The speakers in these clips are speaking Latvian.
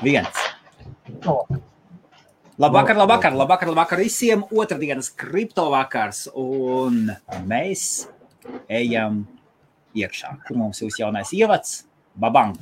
1. Labvakar visiem. Otrdienas kriptovakars. Un mēs ejam iekšā. Kur mums būs jaunais ievads? Babang!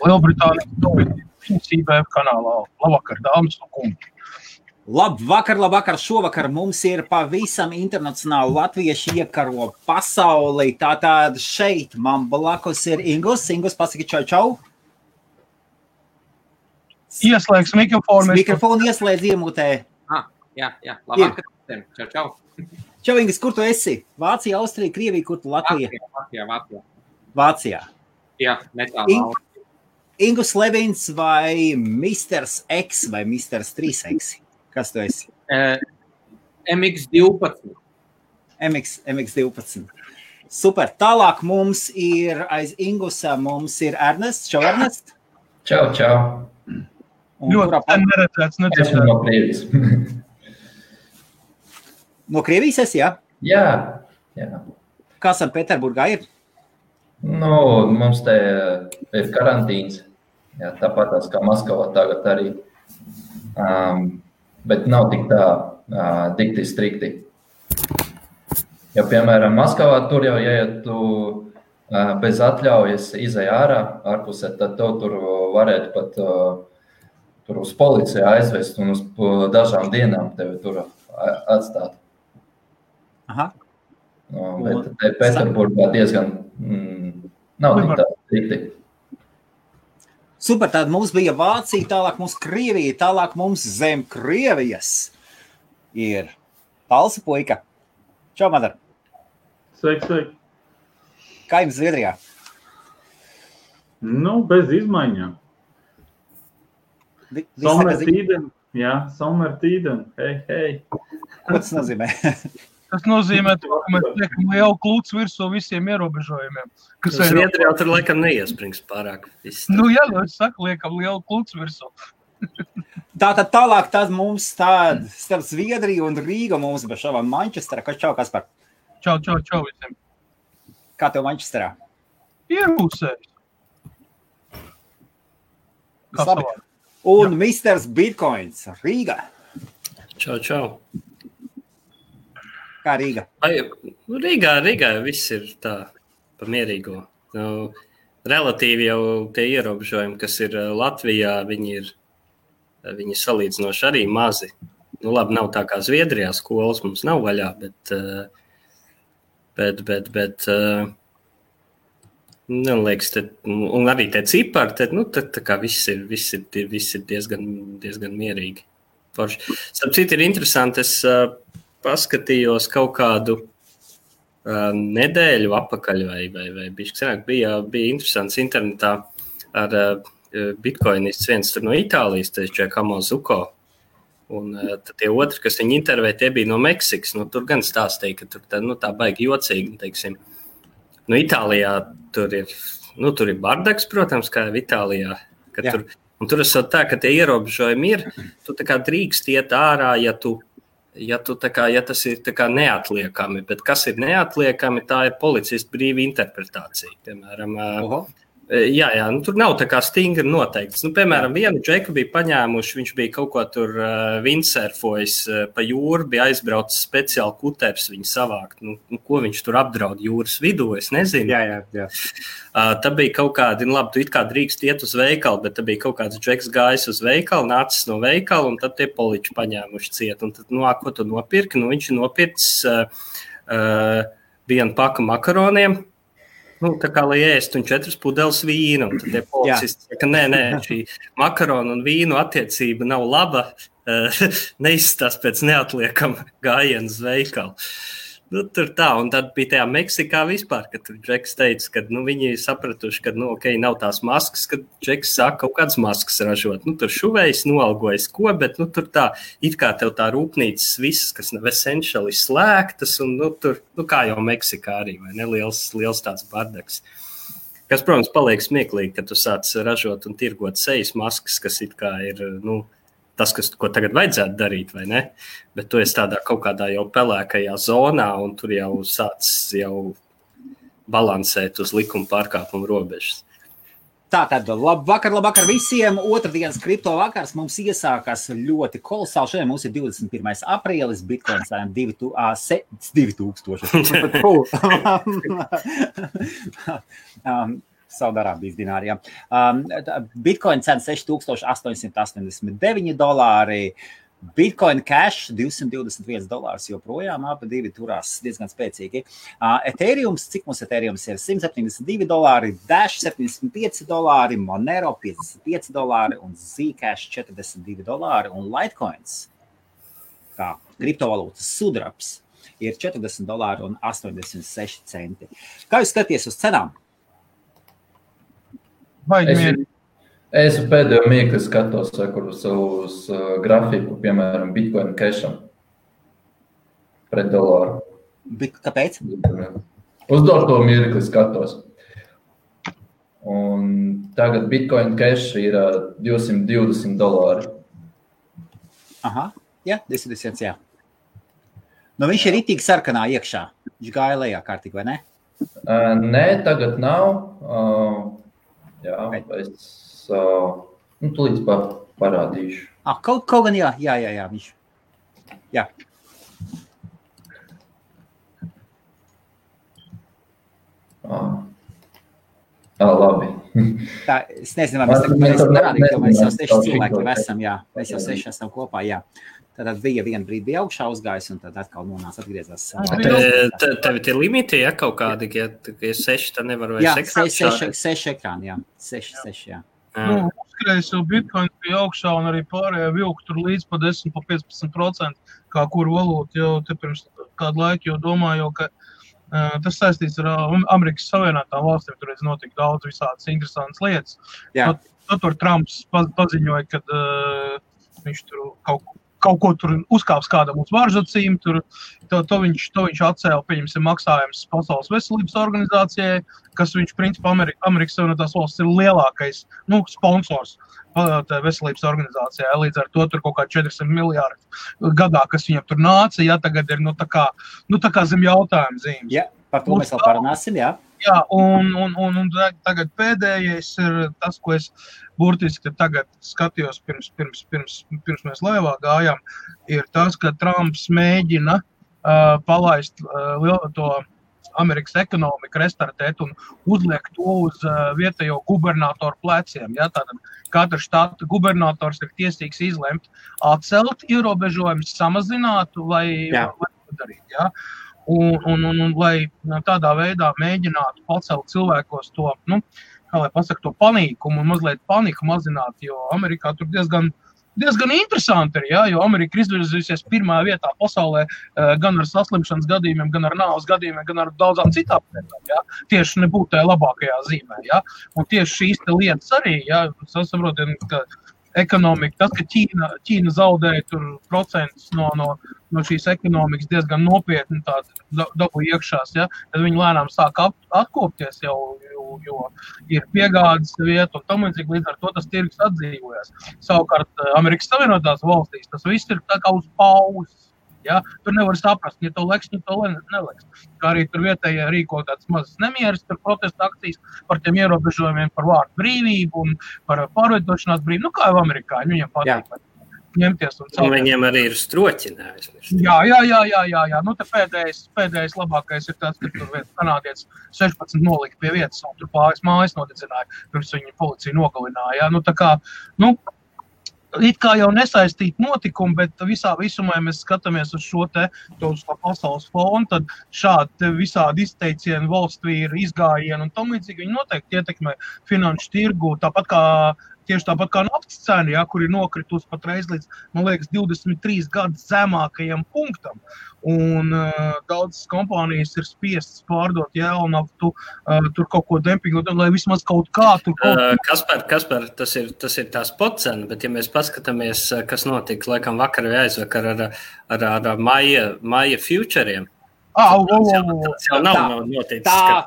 Lielbritānijas viņas IBF kanālā. Labvakar, dāmas un kungi. Labvakar. Šovakar mums ir pavisam internacionāli latvieši iekaro pasauli. Tātad šeit man blakus ir Ingus. Ingus, pasaki čau. Ieslēgs mikrofonu. Mikrofonu ieslēdz iemutē. Jā. Labvakar. Čau. Čau, Ingus, kur tu esi? Vācija, Austrija, Krievija, kur tu Latvija? Vācijā. Jā, netālu. Ingus Levins vai Misters X vai Misters 3X? Kas tu esi? MX12. MX12. Super. Tālāk mums ir aiz Ingusa, mums ir Ernests. Čau, Ernest. Čau. Ļoti neredzēts. Esmu no Krievijas. No Krievijas esi, jā? Jā. Kā Sanktpēterburgā ir? Mums te ir karantīns, jā, tāpat kā Maskavā tagad arī, bet nav tik tā dikti strikti. Ja, piemēram, Maskavā tur jau, ja tu bez atļaujas izej ārpusē, tad tev tur varētu pat tur uz policiju aizvest un uz dažām dienām tevi tur atstāt. Aha. Bet te Pēterburgā diezgan nav tik tā strikti. Super, tad mums bija Vācija, tālāk mums Krievija, tālāk mums zem Krievijas ir Talsa puika. Čau, Madar. Sveiki. Kā jums Zviedrijā? Bez izmaiņām. Sommertīden. Hei. Ko tas nozīmē? Tas nozīmē, ka mēs liekam lielu klucu virsū visiem ierobežojumiem. Zviedrijā tur laikam neiesprings pārāk. Es saku, liekam lielu klucu virsū. Tātad tālāk tad mums starp Zviedriju un Rīgu mums bija šovā Manchestera. Čau, Kaspar? Čau visiem. Kā tev Manchesterā? Ierūsējis. Labi. Un Misters Bitcoins Rīga. Čau. Kā Rīga? Rīgā viss ir tā pa mierīgo. Relatīvi jau tie ierobežojumi, kas ir Latvijā, viņi salīdzinoši arī mazi. Labi, nav tā kā Zviedrijā, skolas mums nav vaļā, bet liekas, un arī tie cipari, tad tā kā viss ir diezgan mierīgi. Starp citu ir interesanti, es paskatījos kaut kādu nedēļu apakaļ vai bišķi senāk. Bija interesants internetā ar bitcoinists viens tur no Itālijas, Giacomo Zucco. Un tad tie otri, kas viņu intervēja, tie bija no Meksikas. Tur gan stāstīja, ka tur tā baigi jocīgi, teiksim. Itālijā tur ir bardaks, protams, kā jau Itālijā. Tur esot tā, ka tie ierobežojumi ir, tu tā kā drīkst iet ārā, ja tas ir tā kā neatliekami, bet kas ir neatliekami, tā ir policistu brīva interpretācija. Piemēram, tur nav tā kā stingri noteikts. Piemēram, vienu džeku bija paņēmuši, viņš bija kaut ko tur windsurfojis pa jūru, bija aizbraucis speciāli kuters viņu savākt. Ko viņš tur apdraud jūras vidū, es nezinu. Jā. Tā bija kaut kādi, tu it kā drīkst iet uz veikalu, bet tā bija kaut kāds džeks gājis uz veikalu, nācis no veikala, un tad tie poliči paņēmuši ciet. Un tad, ko tu nopirki? Viņš ir nopircis vienu paku makaroniem, tā kā lai ēst un 4 pudeles vīnu. Un tad tie policisti saka, nē, šī makaronu un vīnu attiecība nav laba, neizstās pēc neatliekama gājiena uz veikalu. Tur tā, un tad bija tajā Meksikā vispār, kad tur Džeks teica, ka viņi sapratuši, ka, nav tās maskas, kad Džeks saka kaut kādas maskas ražot. Tur šuvējs noalgojas ko, bet tur tā, it kā tev tā rūpnīcas visas, kas nav essentially slēgtas, un tur, kā jau Meksikā arī, vai ne, liels tāds bardaks. Kas, protams, paliek smieklīgi, ka tu sāc ražot un tirgot sejas maskas, kas it kā ir, tas, ko tagad vajadzētu darīt, vai ne? Bet tu esi tādā kaut kādā jau pelēkajā zonā, un tur jau sāc balansēt uz likuma pārkāpumu robežas. Tātad, labvakar visiem. Otrdienas kripto vakars mums iesākās ļoti kolosāli. Šodien mums ir 21. aprīlis, Bitcoin cena 2000. Saudārābijas dināri, jā. Bitcoin cena $6,889, Bitcoin Cash $221, joprojām abi divi turās diezgan spēcīgi. Ethereums, cik mums Ethereums ir? $172, Dash $75, Monero $55 un Zcash $42 un Litecoins, kā kriptovalūtas sudrabs, ir $40 un 86 centi. Kā jūs skaties uz cenām? Es pēdējo mirkli skatos uz grafiku, piemēram, Bitcoin Casham pret dolāru. Kāpēc? Uz doto mirkli skatos. Un tagad Bitcoin Cash ir $220. Aha, jā, 220, jā. Viņš ir ritīgi sarkanā iekšā. Viņš gāja lejā kārtīgi, vai ne? Nē, tagad nav. Jā, es tūlīt parādīšu. Kaut gan jā, viņš. Jā. Labi. Tā, es nezinu, vai mēs tagad parādīt, jo mēs jau 6 cilvēki esam, jā. Mēs jau 6 esam kopā, jā. Tad vienu brīdi bija augšā uzgājis, un tad atkal nonāca atgriezās. Tev ir limiti, ja kaut kādi, ja 6, tad nevar vairs ekrāni? Jā, 6 ekrāni, jā. 6, jā. Uzkrējis jau Bitcoin bija augšā, un arī pārējā vilku tur līdz pa 10–15%, kā kur valūta jau te pirms kādu laiku jau domāju, ka tas saistīts ar Amerikas Savienotām valstīm, tur notika daudz visādas interesantas lietas. Tur Trumps paziņoja, ka viņš tur kaut ko tur uzkāps kādam uz varžacīm, to viņš atcēla, pieņemsim, maksājums Pasaules veselības organizācijai, kas viņš, principā, Amerikas Savienotās valsts ir lielākais, sponsors veselības organizācijai. Līdz ar to tur kaut kā 400 miljārdi gadā, kas viņam tur nāca, tagad ir, tā kā zem jautājuma zīmes. Jā, par to mēs vēl parunāsim, jā. Jā, un tagad pēdējais ir tas, ko es burtiski tagad skatījos pirms mēs laivā gājām, ir tas, ka Trumps mēģina palaist to Amerikas ekonomiku, restartēt un uzliekt to uz vietējo gubernatoru pleciem. Ja? Tātad katra štata gubernators ir tiesīgs izlemt atcelt ierobežojumus, samazināt vai darīt. Ja? Un lai tādā veidā mēģinātu pacelt cilvēkos to, kā lai pasaka, to panīkumu un mazliet paniku mazināt, jo Amerikā tur diezgan interesanti ir, ja? Jo Amerika ir izvirzījusies pirmā vietā pasaulē gan ar saslimšanas gadījumiem, gan ar nāves gadījumiem, gan ar daudzām citām lietām, ja? Tieši nebūtu tajā labākajā zīmē, ja? Un tieši šīs te lietas arī, ja? Saprotiet, ka ekonomika, tas, ka Ķīna zaudēja tur procentus no šīs ekonomikas diezgan nopietni dabu iekšās, ja? Tad viņi lēnām sāk atkopties jau, jo ir piegādes vieta un tam līdzīgi, līdz ar to tas tirgus atdzīvojas. Savukārt Amerikas Savienotās valstīs tas viss ir tā kā uz pauzes. Ja? Tur nevar saprast, ja to leks, ja to neleks. Kā arī tur vietējie rīko tāds mazas nemieras, tur protesta akcijas par tiem ierobežojumiem par vārdu brīvību un par pārvietošanās brīvību. Kā jau amerikāņi, viņiem patīk ņemties un celties. Viņiem arī ir stroķinājums. Jā. Te pēdējais labākais ir tas, ka tur viens kanādietis 16 nolika pie vietas un tur mājas nodedzināja, pirms viņi policija nogalināja. Ja? Tā kā, it kā jau nesaistīt notikumu, bet visumā, ja mēs skatāmies uz šo uz pasaules fonu, tad šādi visādi izteicieni valstvīri, izgājieni un tam līdzīgi viņi noteikti ietekmē finanšu tirgu, tāpat kā tieši tāpat kā naftas cena, ja, kur ir nokritusi patreiz līdz, man liekas, 23 gadus zemākajam punktam. Un daudzas kompānijas ir spiestas pārdot jēlnaftu, tur kaut ko dempingot, lai vismaz kaut kā tur... Kaspar, tas ir tā spot cena, bet ja mēs paskatāmies, kas notika, laikam vakar vai aizvakar ar maija futuriem, tas jau nav noticis, tā.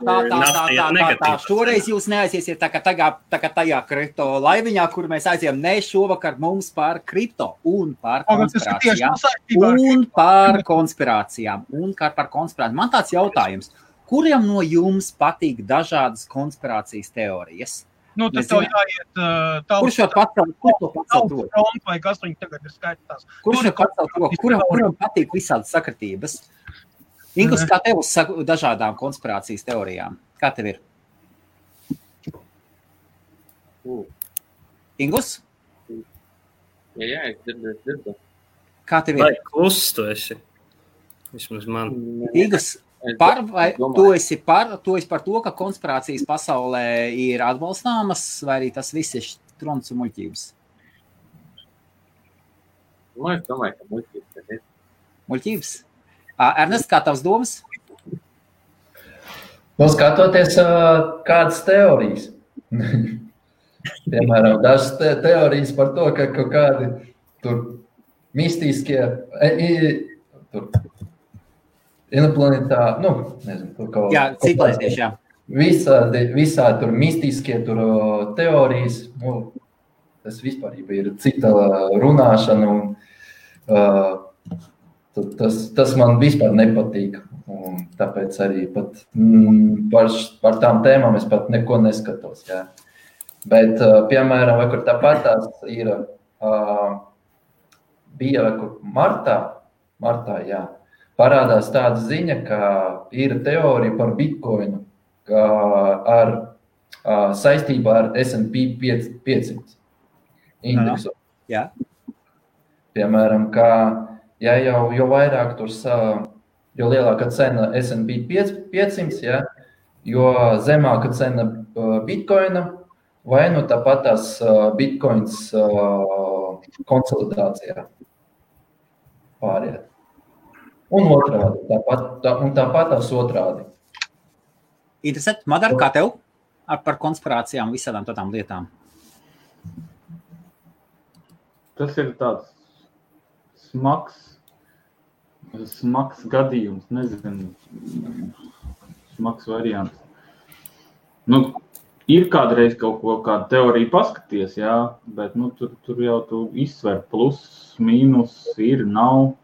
Šoreiz jūs neaiziesiet tā kā tajā kripto laiviņā, kur mēs aizējām šovakar mums par kripto un par konspirācijām. Man tāds jautājums, kuriem no jums patīk dažādas konspirācijas teorijas? Nu, tad tev jāiet Kurš jau pacelt to? Vai kas viņi tagad ir skaitās? Kurš jau pacelt to? Kuram patīk visādas sakritības? Ingus, kā tev uz dažādām konspirācijas teorijām? Kā tev ir? Ingus? Jā, es dzirdu. Kā tev ir? Vai kluss tu esi? Vismaz man. Ingus, tu esi par to, ka konspirācijas pasaulē ir atbalstāmas, vai arī tas viss ir trons un muļķības? Es domāju, ka muļķības ir. Muļķības? Ernest, kā tavs domas? Skatoties kādas teorijas. Piemēram, dažas teorijas par to, ka kaut kādi tur mistiskie, tur inoplanetā, nezinu, tur kaut... Jā, ciklētieši, jā. Visādi tur mistiskie tur teorijas, tas vispārība ir cita runāšana un tas man vispār nepatīk, un tāpēc arī pat par tām tēmām es pat neko neskatos, jā. Bet, piemēram, vai kur tāpatās ir, bija vai kur martā, jā, parādās tāda ziņa, ka ir teorija par Bitcoinu ar saistībā ar S&P 500 indeksu. Jā. Piemēram, ka ja jau vairāk tur, jo lielāka cena S&P 500, ja, jo zemāka cena Bitcoina, vai tāpat tās Bitcoins konsolidācijā pāriet. Un otrādi, tāpat tās otrādi. Interesanti. Madar, kā tev par konspirācijām visādām tādām lietām? Tas ir tāds smags gadījums, nezinu, smags variants. Ir kādreiz kāda teorija paskaties, jā, bet tur jau tu izsver plus, mīnus, ir, nav.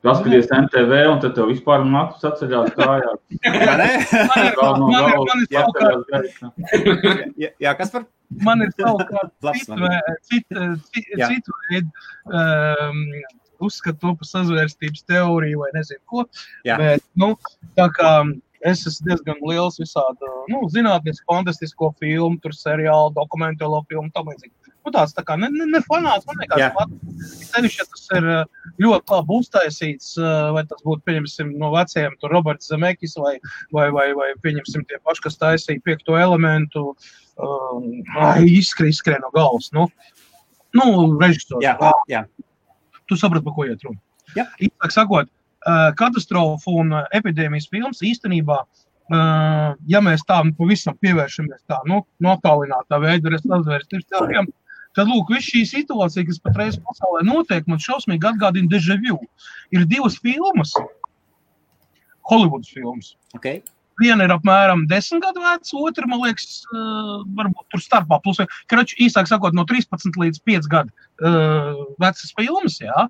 Paskaties NTV un tad tev vispār naktus atceļās kājās. Jā, kas par? Man ir savukārt citu veidu uzskatu to par sazvērstības teoriju vai nezinu ko. Jā. Bet, tā kā es esmu diezgan liels visādu, zinātnisku, fantastisko filmu, tur seriālu, dokumentālo filmu, tam līdzīgi. Tāds tā kā ne fanāts, man nekāds pats. Sevišķi, ja tas ir ļoti labi uztaisīts, vai tas būtu, pieņemsim, no vecajiem, tur Roberts Zemekis vai pieņemsim tie paši, kas taisīja 5. elementu, izskrien no galvas, režisors. Jā. Tu saprati, par ko iet runa. Jā. Īstāk sakot, katastrofu un epidēmijas filmas īstenībā, ja mēs tā pavisam pievēršamies tā, attālinātā veidā sazvērstības teorijām, tad, lūk, viss šī situācija, kas patreiz pasaulē notiek, man šausmīgi atgādina déjà vu. Ir 2 filmas, Hollywoods filmas. Okay. Viena ir apmēram 10 gadu veca, otra, man liekas, varbūt tur starpā plus. Īsāk sakot, no 13 līdz 5 gadu vecas filmas, jā,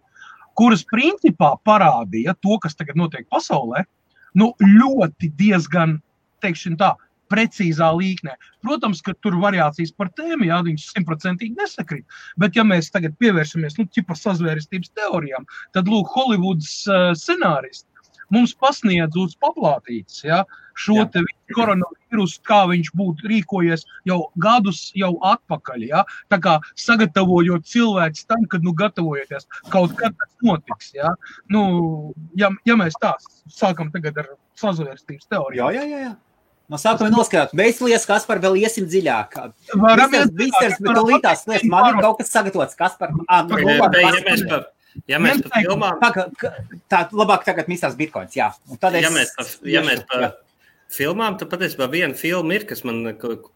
kuras principā parādīja to, kas tagad notiek pasaulē, ļoti diezgan, teikšana tā, precīzā līknē. Protams, ka tur variācijas par tēmu, jā, viņas 100% nesakrīt, bet ja mēs tagad pievēršamies, ķipa sazvērstības teorijām, tad, lūk, Hollywoods scenāristi mums pasniedz uz paplātītes, ja, šo te koronavīrusu, kā viņš būtu rīkojies jau gadus jau atpakaļ, ja, tā kā sagatavojot cilvēks tam, kad, gatavojoties, kaut kad tas notiks, ja, ja mēs tā sākam tagad ar sazvērstības teoriju. Jā. No sākuma noskatāt, veiclies, Kaspar, vēl iesim dziļāk. Varam Misters, bet tūlītās lietas, man ir kaut kas sagatavots, Kaspar. Ja mēs par filmām... Tā labāk tagad Misters Bitcoins, jā. Un tad ja mēs par filmām, tad patiesībā viena filma ir, kas man,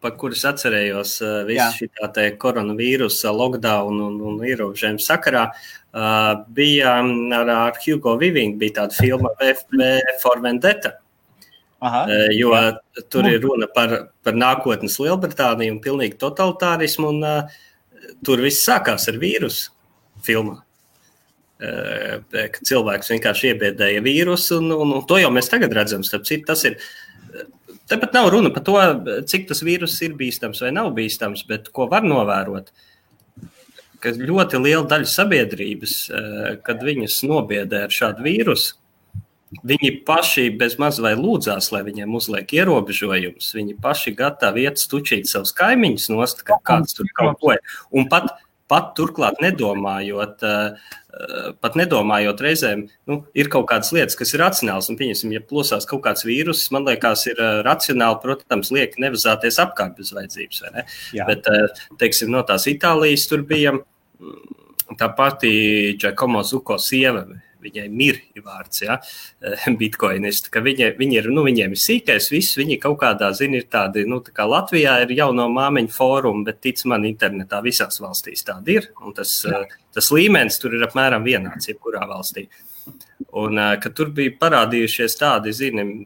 par kuras atcerējos visu šitā te koronavīrusa, lockdown un ierobežojumu sakarā, bija ar Hugo Weaving, bija tāda filma V for Vendetta. Jo tur ir runa par nākotnes Lielbritāniju un pilnīgi totalitārismu, un tur viss sākās ar vīrusu filmā. Ka cilvēks vienkārši iebiedēja vīrusu, un to jau mēs tagad redzam. Tas ir, tepat nav runa par to, cik tas vīrus ir bīstams vai nav bīstams, bet ko var novērot, ka ļoti liela daļa sabiedrības, kad viņas nobiedē ar šādu vīrusu, viņi paši bez maz vai lūdzās, lai viņiem uzliek ierobežojumus. Viņi paši gatavi iet stučīt savus kaimiņus nost, ka kāds tur kaut ko ir. Un pat turklāt nedomājot reizēm, ir kaut kādas lietas, kas ir racionāls. Un, pieņemsim, ja plosās kaut kāds vīrus, man liekas, ir racionāli, protams, liek nevazāties apkārt bez vajadzības. Vai ne? Jā. Bet, teiksim, no tās Itālijas tur bija tā pati Giacomo Zucco sieva, viņai Mir ir vārds, bitcoinisti, ka viņi ir, viņiem ir sīkais, viss, viņi kaut kādā, ir tādi, tā kā Latvijā ir jauno māmiņu fórumi, bet tic man internetā visās valstīs tādi ir, un tas līmenis tur ir apmēram vienāds, jebkurā valstī. Un, kad tur bija parādījušies tādi,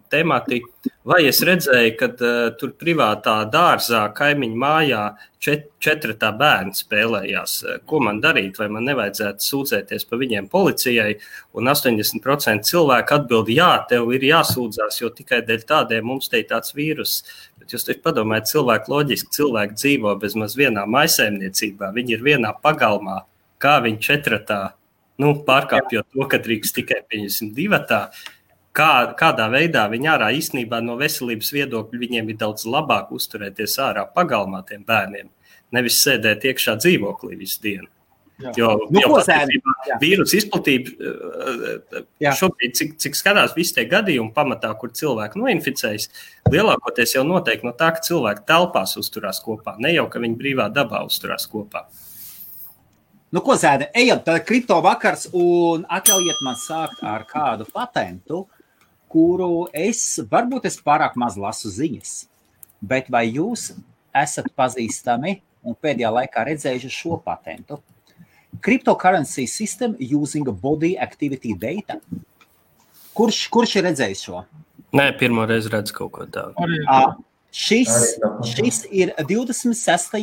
temati, vai es redzēju, kad tur privātā dārzā, kaimiņu mājā 4 bērni spēlējās. Ko man darīt, vai man nevajadzētu sūdzēties pa viņiem policijai? Un 80% cilvēku atbild, jā, tev ir jāsūdzās, jo tikai dēļ tādiem mums te ir tāds vīrus. Bet jūs taču padomājat, cilvēki loģiski, cilvēki dzīvo bez maz vienā maisaimniecībā, viņi ir vienā pagalmā, kā viņi 4 pārkāpjot to, ka drīkst tikai 2, kādā veidā viņi ārā īstenībā no veselības viedokļa viņiem ir daudz labāk uzturēties ārā pagalmā tiem bērniem, nevis sēdēt iekšā dzīvoklī visu dienu. Jā. Jo vīrusu izplatība šobrīd, cik skatās visi tie gadījumi pamatā, kur cilvēki noinficējas, lielākoties jau noteikti no tā, ka cilvēki telpās uzturās kopā, ne jau, ka viņi brīvā dabā uzturās kopā. Ko Zēne, ejam, tad kripto vakars un atļaujiet man sākt ar kādu patentu, kuru varbūt es pārāk maz lasu ziņas, bet vai jūs esat pazīstami un pēdējā laikā redzējuši šo patentu? Cryptocurrency system using body activity data. Kurš ir redzējis šo? Nē, pirmo reizi redzu kaut ko tādu. Šis ir 26.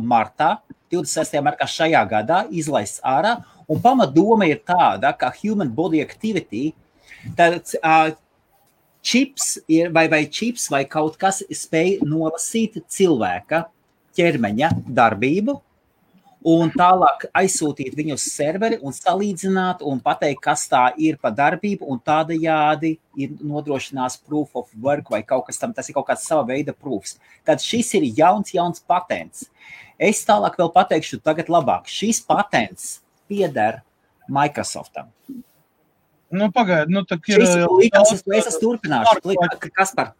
martā šajā gadā izlaists ārā, un pamatdoma ir tāda, ka human body activity, tad čips vai kaut kas spēj nolasīt cilvēka ķermeņa darbību, un tālāk aizsūtīt viņu uz serveri un salīdzināt un pateikt, kas tā ir pa darbību, un tādajādi ir nodrošinās proof of work vai kaut kas tam, tas ir kaut kāds sava veida proofs. Tad šis ir jauns patents. Es tālāk vēl pateikšu tagad labāk. Šis patents pieder Microsoftam. Pagaid, tā ir... Es turpināšu. Kaspar,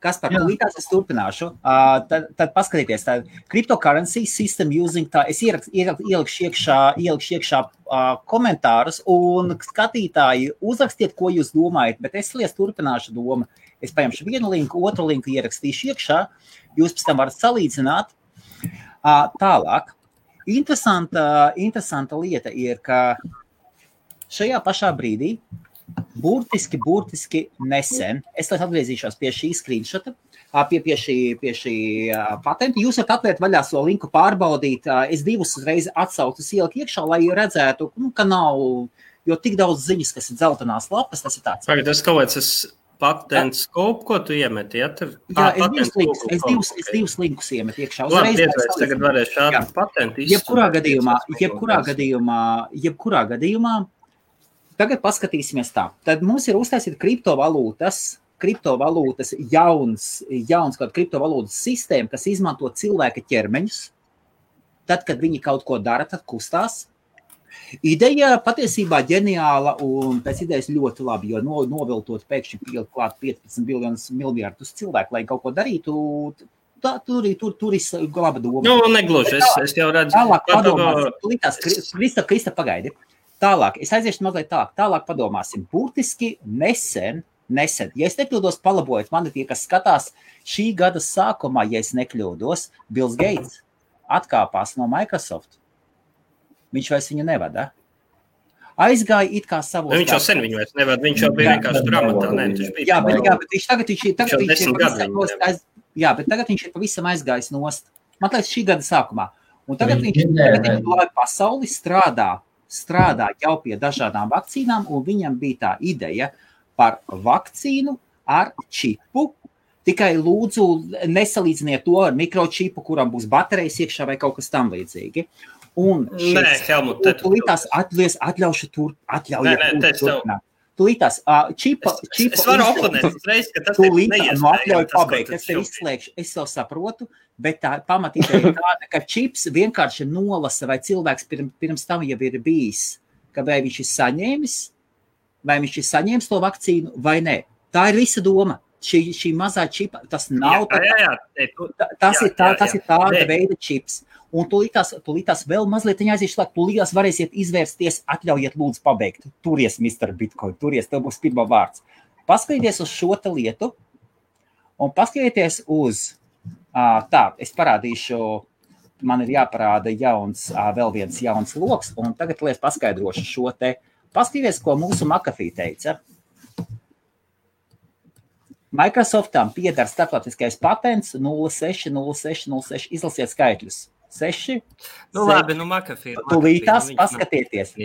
līdās es turpināšu. Tad paskatieties, tā cryptocurrency system using tā, es ielikšu iekšā komentārus, un skatītāji uzrakstiet, ko jūs domājat, bet es turpināšu domu. Es paņemšu vienu linku, otru linku ierakstīšu iekšā, jūs pēc tam varat salīdzināt. Tālāk, interesanta lieta ir, ka šajā pašā brīdī burtiski nesen, es atgriezīšos pie šī screenshota, pie šī patenta. Jūs varat atvērt vaļā so linku pārbaudīt. Es 2 reizes atsaucas ieliku iekšā, lai redzētu, ka nav, jo tik daudz ziņas, kas ir dzeltenās lapas, tas ir tāds. Tagad tas kaut kāds patents skopu, ko tu iemeti? Ja? Es divus linkus iemetu iekšā. Labi, tagad varēšu šādu patentu izsūtīt. Jebkurā gadījumā, tagad paskatīsimies tā. Tad mums ir uztaisīt kriptovalūtas jauns kaut kriptovalūtas sistēma, kas izmanto cilvēka ķermeņus. Tad, kad viņi kaut ko dara, tad kustās. Ideja patiesībā ģeniāla un pēc idejas ļoti labi, jo noviltot pēkšņi pielikt klāt 15 miljardus cilvēku, lai kaut ko darītu, tur ir laba doma. Nu, negluži, es jau redzu. Tālāk padomāsim, Krista, pagaidi. Tālāk, es aiziešu mazliet tālāk padomāsim. Burtiski nesen, ja es nekļūdos, palabojiet mani tie, kas skatās šī gada sākumā, ja es nekļūdos, Bills Gates atkāpās no Microsoft. Viņš vairs viņu nevada. Aizgāja it kā savos... Viņš jau sen viņu vairs nevada, viņš jau bija vienkārši grāmatā. Jā, bet tagad viņš ir pavisam aizgājis nost. Man liekas, šī gada sākumā. Un tagad viņš lai pasauli strādā jau pie dažādām vakcīnām, un viņam bija tā ideja par vakcīnu ar čipu. Tikai lūdzu nesalīdziniet to ar mikročipu, kuram būs baterijas iekšā vai kaut kas tam līdzīgi. Un Helmut, atļaujiet turpināt. Tūlītās čipa... Es varu oponēt uzreiz, ka tas ir neiespējami. Atļauju pabeigt, es tev izslēgšu, es jau saprotu, bet tā pamatība ir tāda, ka čips vienkārši nolasa, vai cilvēks pirms tam jau ir bijis, ka vai viņš ir saņēmis to vakcīnu vai nē. Tā ir visa doma. Šī mazā čipa, tas nav... Tas ir tāda veida čips. Un tūlītās vēl mazliet aizīšu, lai tūlītās varēsiet izvērsties, atļaujiet lūdzu pabeigt. Turies, Mr. Bitcoin, turies, tev būs pirmā vārds. Paskatieties uz šo te lietu un paskatieties uz, es parādīšu, man ir jāparāda vēl viens jauns loks, un tagad es paskaidrošu šo te. Paskatieties, ko mūsu McAfee teica. Microsoftam pieder starptautiskais patents 060606, izlasiet skaitļus. 6. Nu labi, McAfee. Tūlītās paskatieties,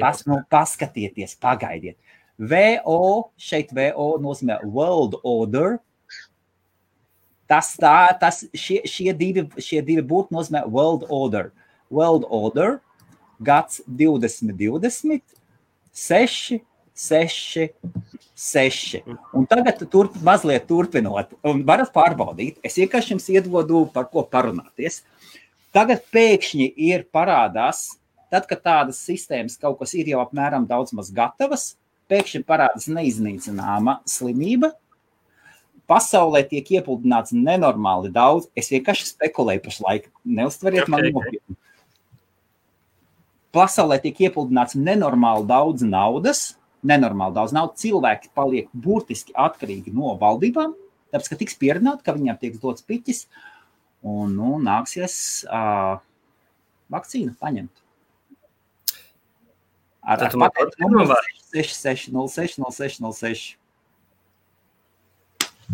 pagaidiet. Šeit VO nozīmē World Order. Šie divi burti nozīmē World Order. World Order, gads 2020, 6. Un tagad mazliet turpinot, un varat pārbaudīt, es vienkārši jums iedodu par ko parunāties. Tagad pēkšņi ir parādās, tad, kad tādas sistēmas kaut kas ir jau apmēram daudz maz gatavas, pēkšņi parādās neiznīcināma slimība, pasaulē tiek iepludināts nenormāli daudz, es vienkārši spekulēju pašlaik, neuztveriet man nopietni. Pasaulē tiek iepludināts nenormāli daudz naudas, cilvēki paliek burtiski atkarīgi no valdībām, tāpēc, ka tiks pierunāt, ka viņiem tiek dots piķis, un nāksies vakcīnu paņemt. Ar patentu 66060606.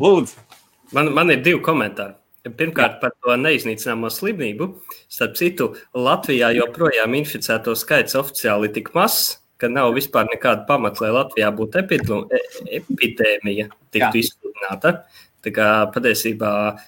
Lūdzu. Man ir 2 komentāri. Pirmkārt, par to neiznīcināmo slimību. Starp citu, Latvijā joprojām inficēto skaits oficiāli tik mazs, ka nav vispār nekāda pamata, lai Latvijā būtu epidēmija tiktu izsludināta. Tā kā patiesībā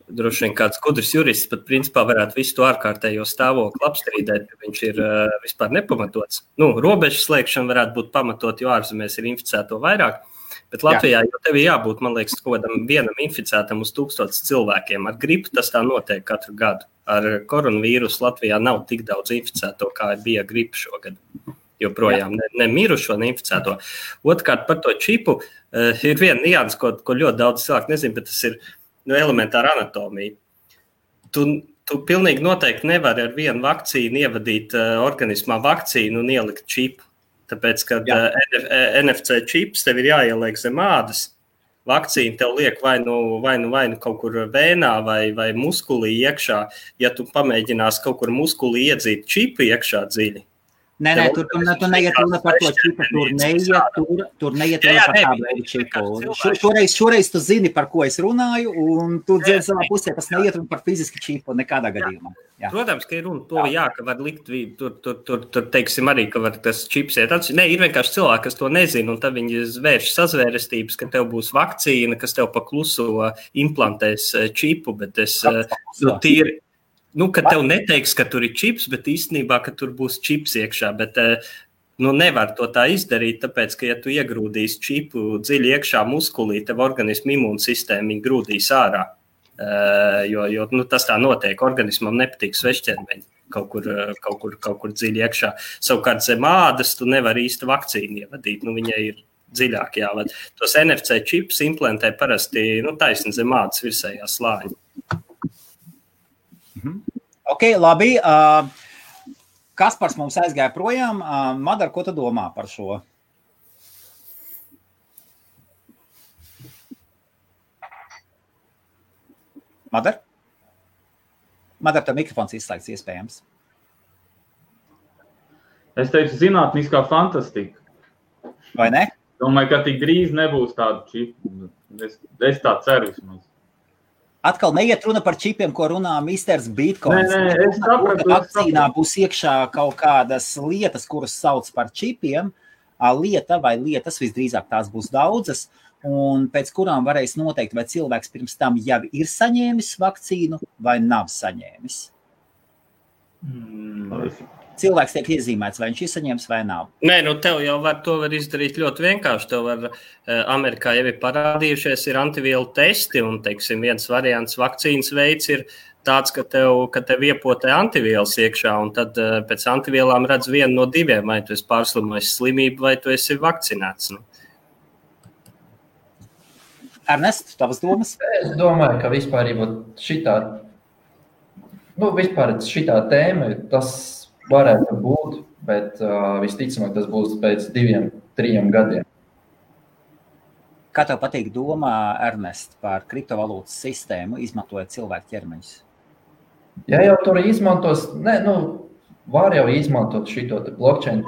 droši vien kāds gudrs jurists pat principā varētu visu to ārkārtējo stāvokli apstrīdēt, ka viņš ir vispār nepamatots. Robežu slēgšana varētu būt pamatot, jo ārzemēs ir inficēto vairāk, bet Latvijā jau tev ir jābūt, man liekas, kaut kādam vienam inficētam uz 1000 cilvēkiem. Ar gripu tas tā notiek katru gadu. Ar koronavīrusu Latvijā nav tik daudz inficēto, kā bija gripa šogad. Joprojām ne mirušo, ne inficēto. Otrkārt, par to čipu ir viena nianse, ko ļoti daudz cilvēku nezin, bet tas ir elementāra anatomija. Tu pilnīgi noteikti nevari ar vienu vakcīnu ievadīt organismā vakcīnu un ielikt čipu. Tāpēc, kad NFC čips tev ir jāieliek zem ādas, vakcīna tev liek vai nu kaut kur vēnā vai muskulī iekšā. Ja tu pamēģinās kaut kur muskulī iedzīt čipu iekšā dziļi. Nē, tur neiet runa par to čipu, tur neiet runa par tādu veidu čipu. Šoreiz tu zini, par ko es runāju, un tu dzirdi savā pusē, tas neiet runa par fiziski čipu nekādā gadījumā. Jā. Protams, ka ir runa to, ka var likt, tur teiksim arī, ka var tas čips iet atšķi. Nē, ir vienkārši cilvēki, kas to nezina, un tad viņi vērš sazvērestības, ka tev būs vakcīna, kas tev pa kluso implantēs čipu, bet es tīri. Ka tev neteiks, ka tur ir čips, bet īstenībā, ka tur būs čips iekšā, bet nevar to tā izdarīt, tāpēc, ka ja tu iegrūdīsi čipu dziļi iekšā muskulī, tev organismu imūnsistēma viņa grūdīs ārā, jo tas tā notiek, organismam nepatīk svešķermeņi. kaut kur dziļi iekšā. Savukārt zem ādas tu nevari īsti vakcīnu ievadīt, viņai ir dziļāk jāvada. Tos NFC čipus implantē parasti taisni zem ādas virsējā slāņa. Ok, labi. Kaspars mums aizgāja projām. Madar, ko tu domā par šo? Madar? Madar, tev mikrofons izslēgts iespējams. Es teicu, zinātniskā fantastika. Vai ne? Domāju, ka tik drīz nebūs tādu čipu. Es tā ceru vismaz. Atkal neiet runa par čipiem, ko runā Misters Bitcoins. Nē, es sapratu. Vakcīnā būs iekšā kaut kādas lietas, kuras sauc par čipiem. Lieta vai lietas, visdrīzāk tās būs daudzas, un pēc kurām varēs noteikt, vai cilvēks pirms tam jau ir saņēmis vakcīnu vai nav saņēmis. Cilvēks tiek iezīmēts, vai viņš ir saņēmis vai nav. Nē, tev jau to var izdarīt ļoti vienkārši. Tev var, Amerikā jau ir parādījušies, ir antivielu testi, un, teiksim, viens variants vakcīnas veids ir tāds, ka tev iepotē antivielas iekšā, un tad pēc antivielām redz vienu no diviem, vai tu esi pārslimojis slimību, vai tu esi vakcinēts. Ernest, tavas domas? Es domāju, ka vispār šitā tēma, tas varētu būt, bet visticamāk tas būs pēc 2-3 gadiem. Kā tev patīk domā, Ernest, par kriptovalūtas sistēmu, izmantojot cilvēku ķermeņus? Ja jau tur izmantos, var jau izmantot šito blockchain,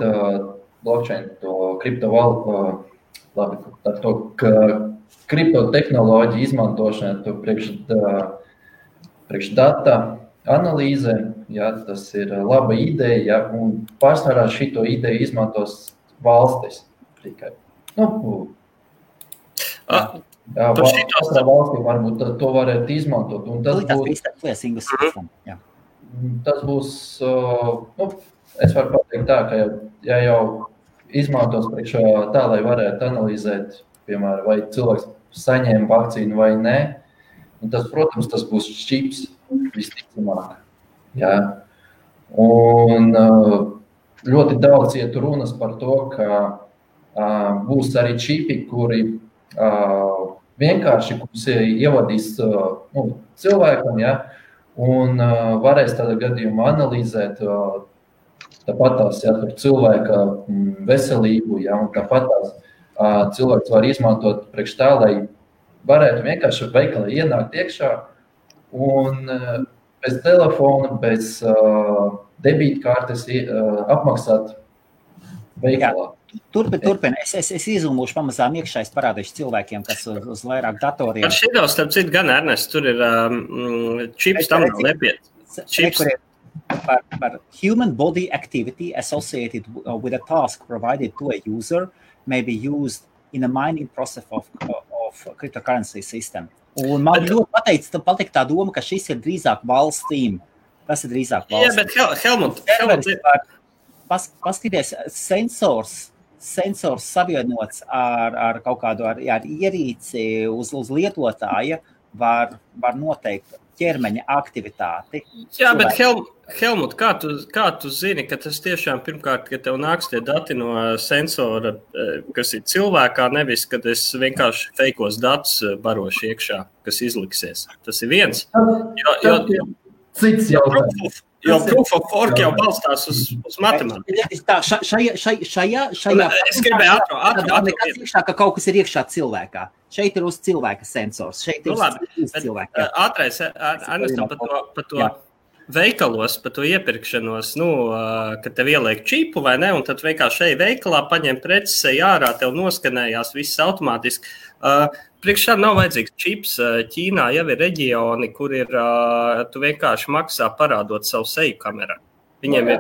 to kriptovalūtu, to kriptotehnoloģiju izmantošanu priekš data analīze, tas ir laba ideja, un pārsvarā šito ideju izmantos valstis tikai. Katrā valstī varbūt to varētu izmantot. Un tas būs, es varu pateikt tā, ka ja jau izmantos priekš tā, lai varētu analizēt, piemēram, vai cilvēks saņēma vakcīnu vai nē, un tas, protams, tas būs čips visticamāk. Jā. Un ļoti daudz iet runas par to, ka būs arī čipi, kuri vienkārši ievadīs cilvēkam, un varēs tādā gadījumā analizēt tāpatās cilvēka veselību, un tāpatās cilvēks var izmantot priekš tā, lai varētu vienkārši veikalā ienākt iekšā un bez telefona, bez debītkartes apmaksāt veikalā. Turpin. Es izlūmušu pamazām iekšā, es parādīšu cilvēkiem, kas uz vairāk datoriem. Par šito, starp citu, gan Ernest, tur ir čips tam nav nepiet. Čips. Par human body activity associated with a task provided to a user may be used in a mining process of cryptocurrency system. Un man ļoti patīk tā doma, ka šis ir drīzāk valstīm. Tas ir drīzāk valstīm. Jā, bet Helmut. Paskaties, sensors savienots ar kaut kādu ar ierīci uz lietotāja var noteikt ķermeņa aktivitāti. Jā, bet Helmut, kā tu zini, ka tas tiešām pirmkārt, ka tev nāks tie dati no sensora, kas ir cilvēkā, nevis, kad es vienkārši feikos datus barošu iekšā, kas izliksies. Tas ir viens. Cits jautājums. Jo proof of work jau balstās uz matemātiku. Šajā es gribēju ātru. Nekas iekšā, ka kaut kas ir iekšā cilvēkā. Šeit ir uz cilvēka sensors. Šeit ir uz cilvēka. Ātrais, Ernestam, par to veikalos, par to iepirkšanos, kad tev ieliek čipu vai ne, un tad vienkārši šeit veikalā paņem preces, ej ārā, tev noskanējās viss automātiski. Priekš tam nav vajadzīgs čips. Ķīnā jau ir reģioni, kur tu vienkārši maksā parādot savu seju kamerā. Viņiem ir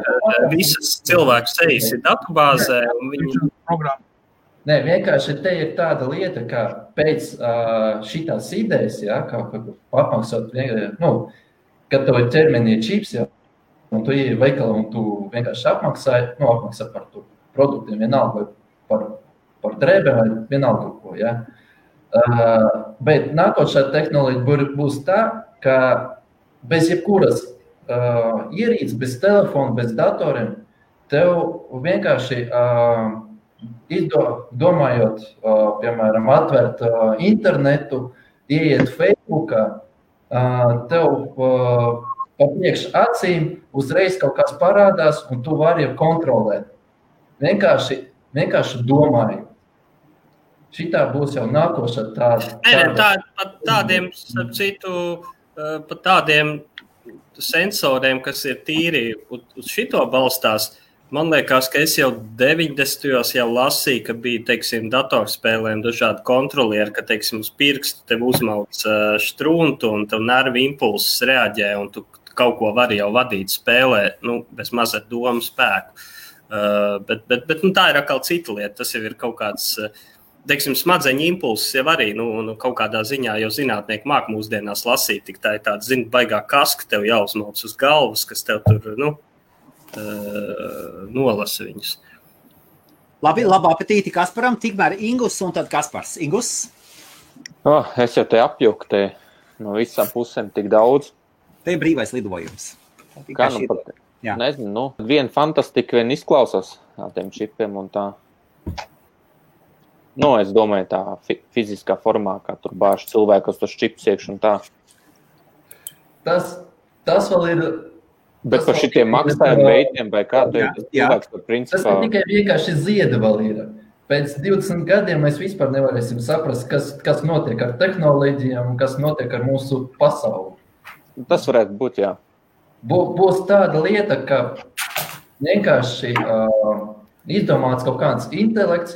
visas cilvēku sejas ir datubāzē. Nē, vienkārši te ir tāda lieta, ka pēc šitās idejas, kā apmaksāt, kad tev ir ķermenī čips, un tu iei veikalā un tu vienkārši apmaksā par to produktiem, vienalga vai par drēbēm vai vienalga ko, Bet nākošā tehnoloģija būs tā, ka bez jebkuras ierīces, bez telefona, bez datoriem, tev vienkārši domājot, piemēram, atvērt internetu, ieiet Facebookā, tev pa priekš acīm uzreiz kaut kas parādās, un tu vari kontrolēt. Vienkārši domāju. Šitā būs jau nākošā tāda. Tādiem, starp citu, pat tādiem sensoriem, kas ir tīri uz šito balstās, man liekas, ka es jau 90. jau lasīju, ka bija, teiksim, datorspēlēm dažādi kontrolieri, ka, teiksim, uz pirkstu tev uzmauc štruntu un tev nervi impulses reaģē, un tu kaut ko vari jau vadīt spēlē, bez mazliet domu spēku. Bet tā ir atkal cita lieta. Tas jau ir kaut kāds, teiksim, smadzeņu impulses jau arī, kaut kādā ziņā jau zinātnieki māk mūsdienās lasīt, tik tā ir tāda, baigā kaska tev jāuzmauc uz galvas, kas tev tur, nolasa viņus. Labi, labu apetīti Kasparam, tikmēr Ingus un tad Kaspars. Ingus? Es jau te apjuku te no visām pusēm tik daudz. Te ir brīvais lidojums. Kā pat, nezinu, viena fantastika vien izklausās tiem čipiem un tā. Es domāju tā fiziskā formā, kā tur bāž cilvēkos tos čipus iekš un tā. Tas vēl ir... Bet par šitiem maksājuma veidiem vai kā tu ir cilvēks par principā? Tas tikai vienkārši zieda vēl ir. Pēc 20 gadiem mēs vispār nevarēsim saprast, kas notiek ar tehnoloģijām un kas notiek ar mūsu pasauli. Tas varētu būt, jā. Būs tāda lieta, ka vienkārši izdomāts kaut kāds intelekts,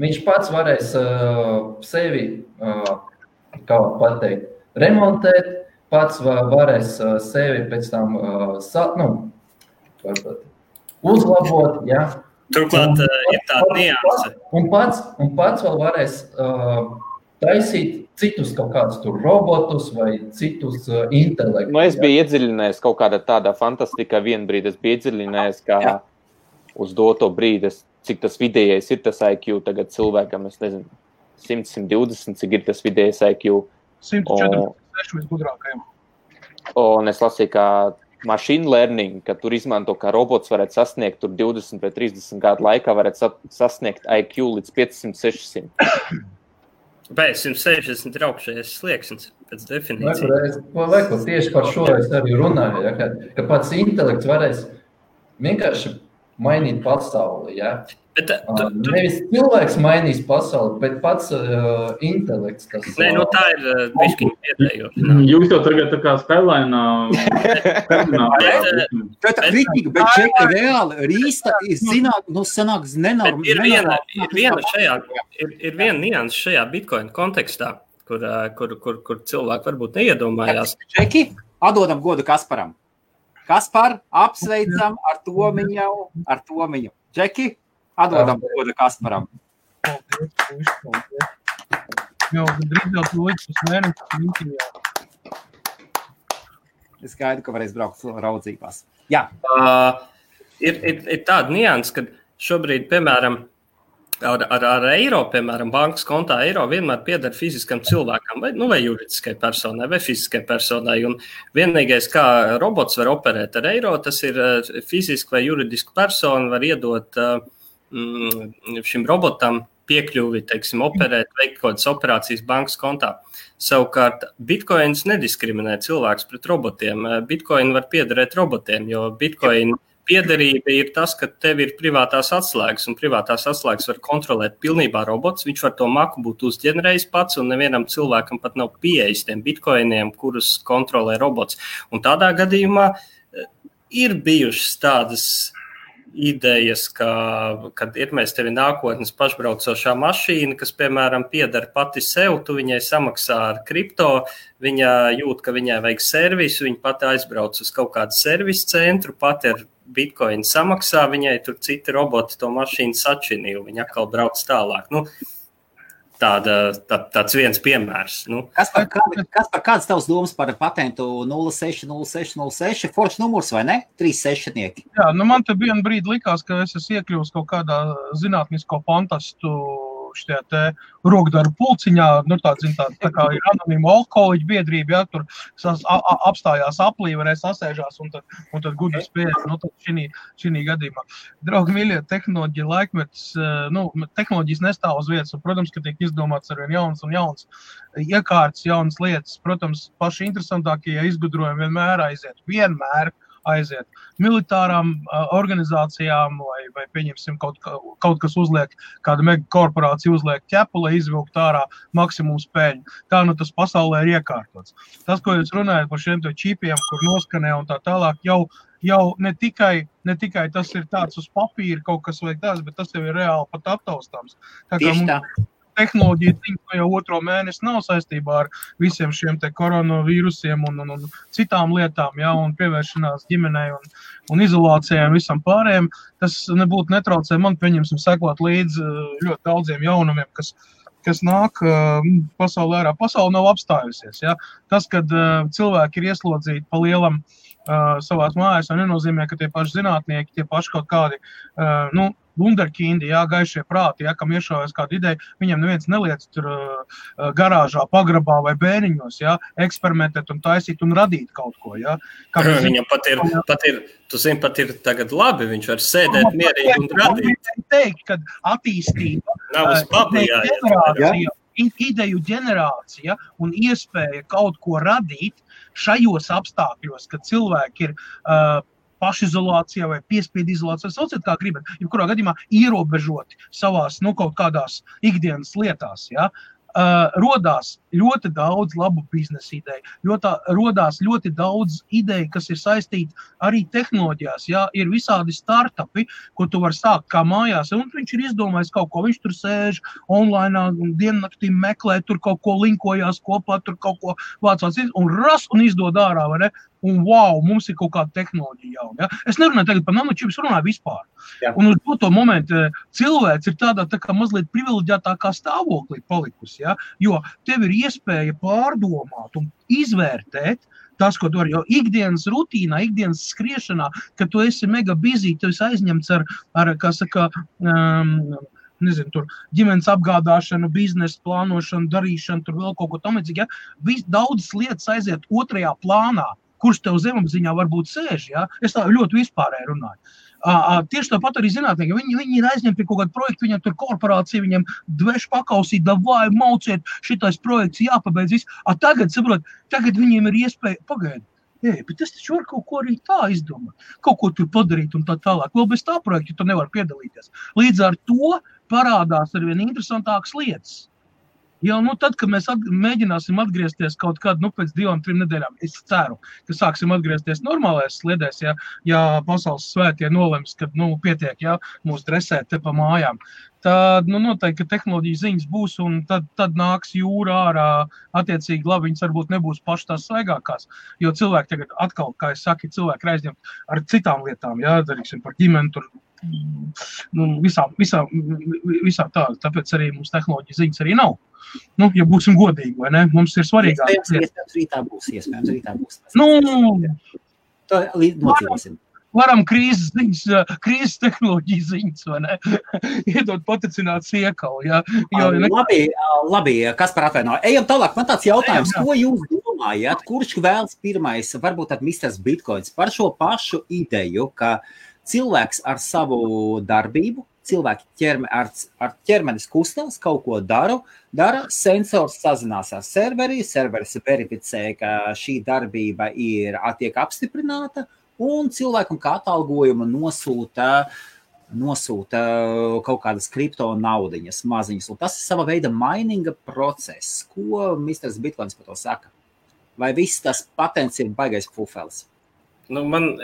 viņš pats varēs sevi, kā pateikt, remontēt, pats varēs sevi pēc tam uzlabot, Turklāt ir tāda nianse. Un pats vēl varēs taisīt citus kaut kādus tur robotus vai citus intelektus. Es biju iedziļinājies kaut kādā tādā fantastikā vienu brīdi. Es biju iedziļinājies, kā uz doto brīdi, cik tas vidējais ir tas IQ tagad cilvēkam, es nezinu, 100-120, cik ir tas vidējais IQ. 146 visgudrākajiem. Un es lasīju, kā machine learning, ka tur izmanto, kā robots varētu sasniegt tur 20 vai 30 gadu laikā, varētu sasniegt IQ līdz 500-600. Pēc 160 ir augšējais slieksnis pēc definīcijas. Tieši par šo es arī runāju, ka pats intelekts varēs vienkārši mainīt pasauli, Nevis cilvēks mainīs pasauli, bet pats intelekts. Tā ir bišķiņa vietējoša. Jūs jau tagad tā kā Skyline'ā... Tā kritika, bet čeka reāli rīsta ir sanāks nenormāli. Ir viena nianse šajā Bitcoin kontekstā, kur cilvēki varbūt neiedomājās. Čeki, atdodam godu Kasparam. Kaspar, apsveicam ar Tomiņu. Čeki, atdodam godu Kasparam. Paldies. Jau drīz jau tu līdz uz mēnesi. Es gaidu, ka varēs braukt raudzībās. Jā. Ir tāda nianse, ka šobrīd, piemēram, ar eiro, piemēram, bankas kontā eiro vienmēr pieder fiziskam cilvēkam, vai juridiskai personai, vai fiziskai personai. Un vienīgais, kā robots var operēt ar eiro, tas ir fiziski vai juridiski persona var iedot šim robotam piekļuvi, teiksim, operēt, veikt kaut kādas operācijas bankas kontā. Savukārt, Bitcoins nediskriminē cilvēks pret robotiem. Bitcoin var piederēt robotiem, jo Bitcoin piederība ir tas, ka tev ir privātās atslēgas, un privātās atslēgas var kontrolēt pilnībā robots. Viņš var to maku būt uzģenerējis pats, un nevienam cilvēkam pat nav pieejas tiem bitcoiniem, kurus kontrolē robots. Un tādā gadījumā ir bijušas tādas idejas, kad ir mēs tevi nākotnes pašbraucošā mašīna, kas, piemēram, pieder pati sev, tu viņai samaksā ar kripto, viņa jūt, ka viņai vajag servisu, viņa pati aizbrauc uz kaut kādu servisu centru, pati ar Bitcoin samaksā, viņai tur citi roboti to mašīnu sačinīja, viņa atkal brauc tālāk. Tāds viens piemērs. Kāds tavs domas par patentu 060606? Foršs numurs, vai ne? 36-nieki. Jā, man te vienu brīdi likās, ka es esmu iekļuvis kaut kādā zinātnisko fantastu šajā te rokdaru pulciņā, tā kā ir anonīma alkoholiķa biedrība, ja, tur apstājās aplī, varēs sasēžās un tad gudri spējas, tad šī gadījumā. Draugi mīļie, tehnoloģija laikmetis, tehnoloģijas nestāv uz vietas, un, protams, ka tiek izdomāts arvien jauns un jauns iekārtas, jaunas lietas. Protams, paši interesantākie izgudrojumi vienmēr aiziet militārām organizācijām vai pieņemsim kaut kas uzliek, kāda mega korporācija uzliek ķepu, lai izvilkt ārā maksimumu spēļu. Tā tas pasaulē ir iekārtots. Tas, ko jūs runājat par šiem čipiem, kur noskanē un tā tālāk, jau ne tikai tas ir tāds uz papīra kaut kas vai tāds, bet tas jau ir reāli pat aptaustāms. Tieši tā. Tehnoloģija jau 2. mēnesi nav saistībā ar visiem šiem te koronavīrusiem un citām lietām, ja, un pievēršanās ģimenei un izolācijai un visam pārējiem. Tas nebūtu netraucē man, pieņemsim, sekot līdz ļoti daudziem jaunumiem, kas nāk pasaulē ārā. Pasaule nav apstājusies. Ja. Tas, kad cilvēki ir ieslodzīti pa lielam savās mājās, nenozīmē, ka tie paši zinātnieki, tie paši kaut kādi, wunderkindi, gaišie prāti, kam iešaujas kāda ideja, viņiem neviens neliec tur garāžā, pagrabā vai bēniņos, eksperimentēt un taisīt un radīt kaut ko, Viņam pat ir tagad labi, viņš var sēdēt mierīgi un radīt. Teikt, ka attīstība, nav uz papīra, ideju ģenerācija un iespēja kaut ko radīt šajos apstākļos, kad cilvēki ir pašizolācijā vai piespiedu izolācijā, sauciet kā gribat, jebkurā gadījumā ierobežoti savās, kaut kādās ikdienas lietās, rodās ļoti daudz labu biznesa ideju, rodās ļoti daudz ideju, kas ir saistīti arī tehnoloģijās, ir visādi startupi, ko tu var sākt kā mājās, un viņš ir izdomājis kaut ko, viņš tur sēž online un diennaktī meklē, tur kaut ko linkojās kopā, tur kaut ko vācās, un izdod ārā, vai ne? Un wow, mums ir kaut kāda tehnoloģija jauna. Ja? Es nerunāju tagad par nanočipus, runāju vispār. Jā. Un uz to momentu cilvēks ir tādā tā kā mazliet privileģētākā stāvoklī palikusi, jo tev ir iespēja pārdomāt un izvērtēt tas, ko tu vari, jo ikdienas rutīnā, ikdienas skriešanā, kad tu esi mega busy, tu esi aizņemts ar kā saka, tur ģimenes apgādāšanu, biznesa plānošanu, darīšanu, tur vēl kaut ko tamlīdzīgi, daudzas lietas aiziet otrajā plānā, kurš tev zemapziņā varbūt sēž, Es tā ļoti vispārēji runāju. Tieši tāpat arī zinātnieki, viņi ir aizņemti pie kaut kādu projektu, viņam tur korporācija, viņam dveš pakausīt, davai, mauciet, šitais projekts jāpabeidz viss. Tagad viņiem ir iespēja, pagaidi, bet es taču varu kaut ko arī tā izdomāt, kaut ko tur padarīt un tā tālāk. Vēl bez tā projekta tu nevar piedalīties. Līdz ar to parādās arvien interesantākas lietas. Tad, kad mēs mēģināsim atgriezties kaut kādu, pēc 2-3 nedēļām, es ceru, ka sāksim atgriezties normālajās sliedēs, ja pasaules svētie nolems, kad, pietiek, mūs dresēt te pa mājām. Tad, noteikti, ka tehnoloģija ziņas būs, un tad nāks jūra ārā, attiecīgi labi, viņas varbūt nebūs paši tās svaigākās, jo cilvēki tagad atkal, kā es saku, cilvēki aizņemt ar citām lietām, darīksim par ģimeni, tur, visā tā, tāpēc arī mums tehnoloģija ziņas arī nav. Ja būsim godīgi, vai ne? Mums ir svarīgāk. Iespējams, rītā būs. To nocīvosim. Varam krīzes tehnoloģiju ziņas, vai ne? Iedot paticināt siekalu, Labi, Kaspar atvaino. Ejam tālāk, man tāds jautājums, ko jūs domājat, kurš vēlas pirmais, varbūt tad Misters Bitcoins, par šo pašu ideju, ka cilvēks ar savu darbību, cilvēki ar ķermenis kustās, kaut ko dara, sensors sazinās ar serveris verificē, ka šī darbība tiek apstiprināta, un cilvēkam kā atalgojumu nosūta kaut kādas kripto naudiņas maziņas. Un tas ir sava veida mininga process. Ko Misters Bitcoins par to saka? Vai viss tas patents ir baigais fufelis?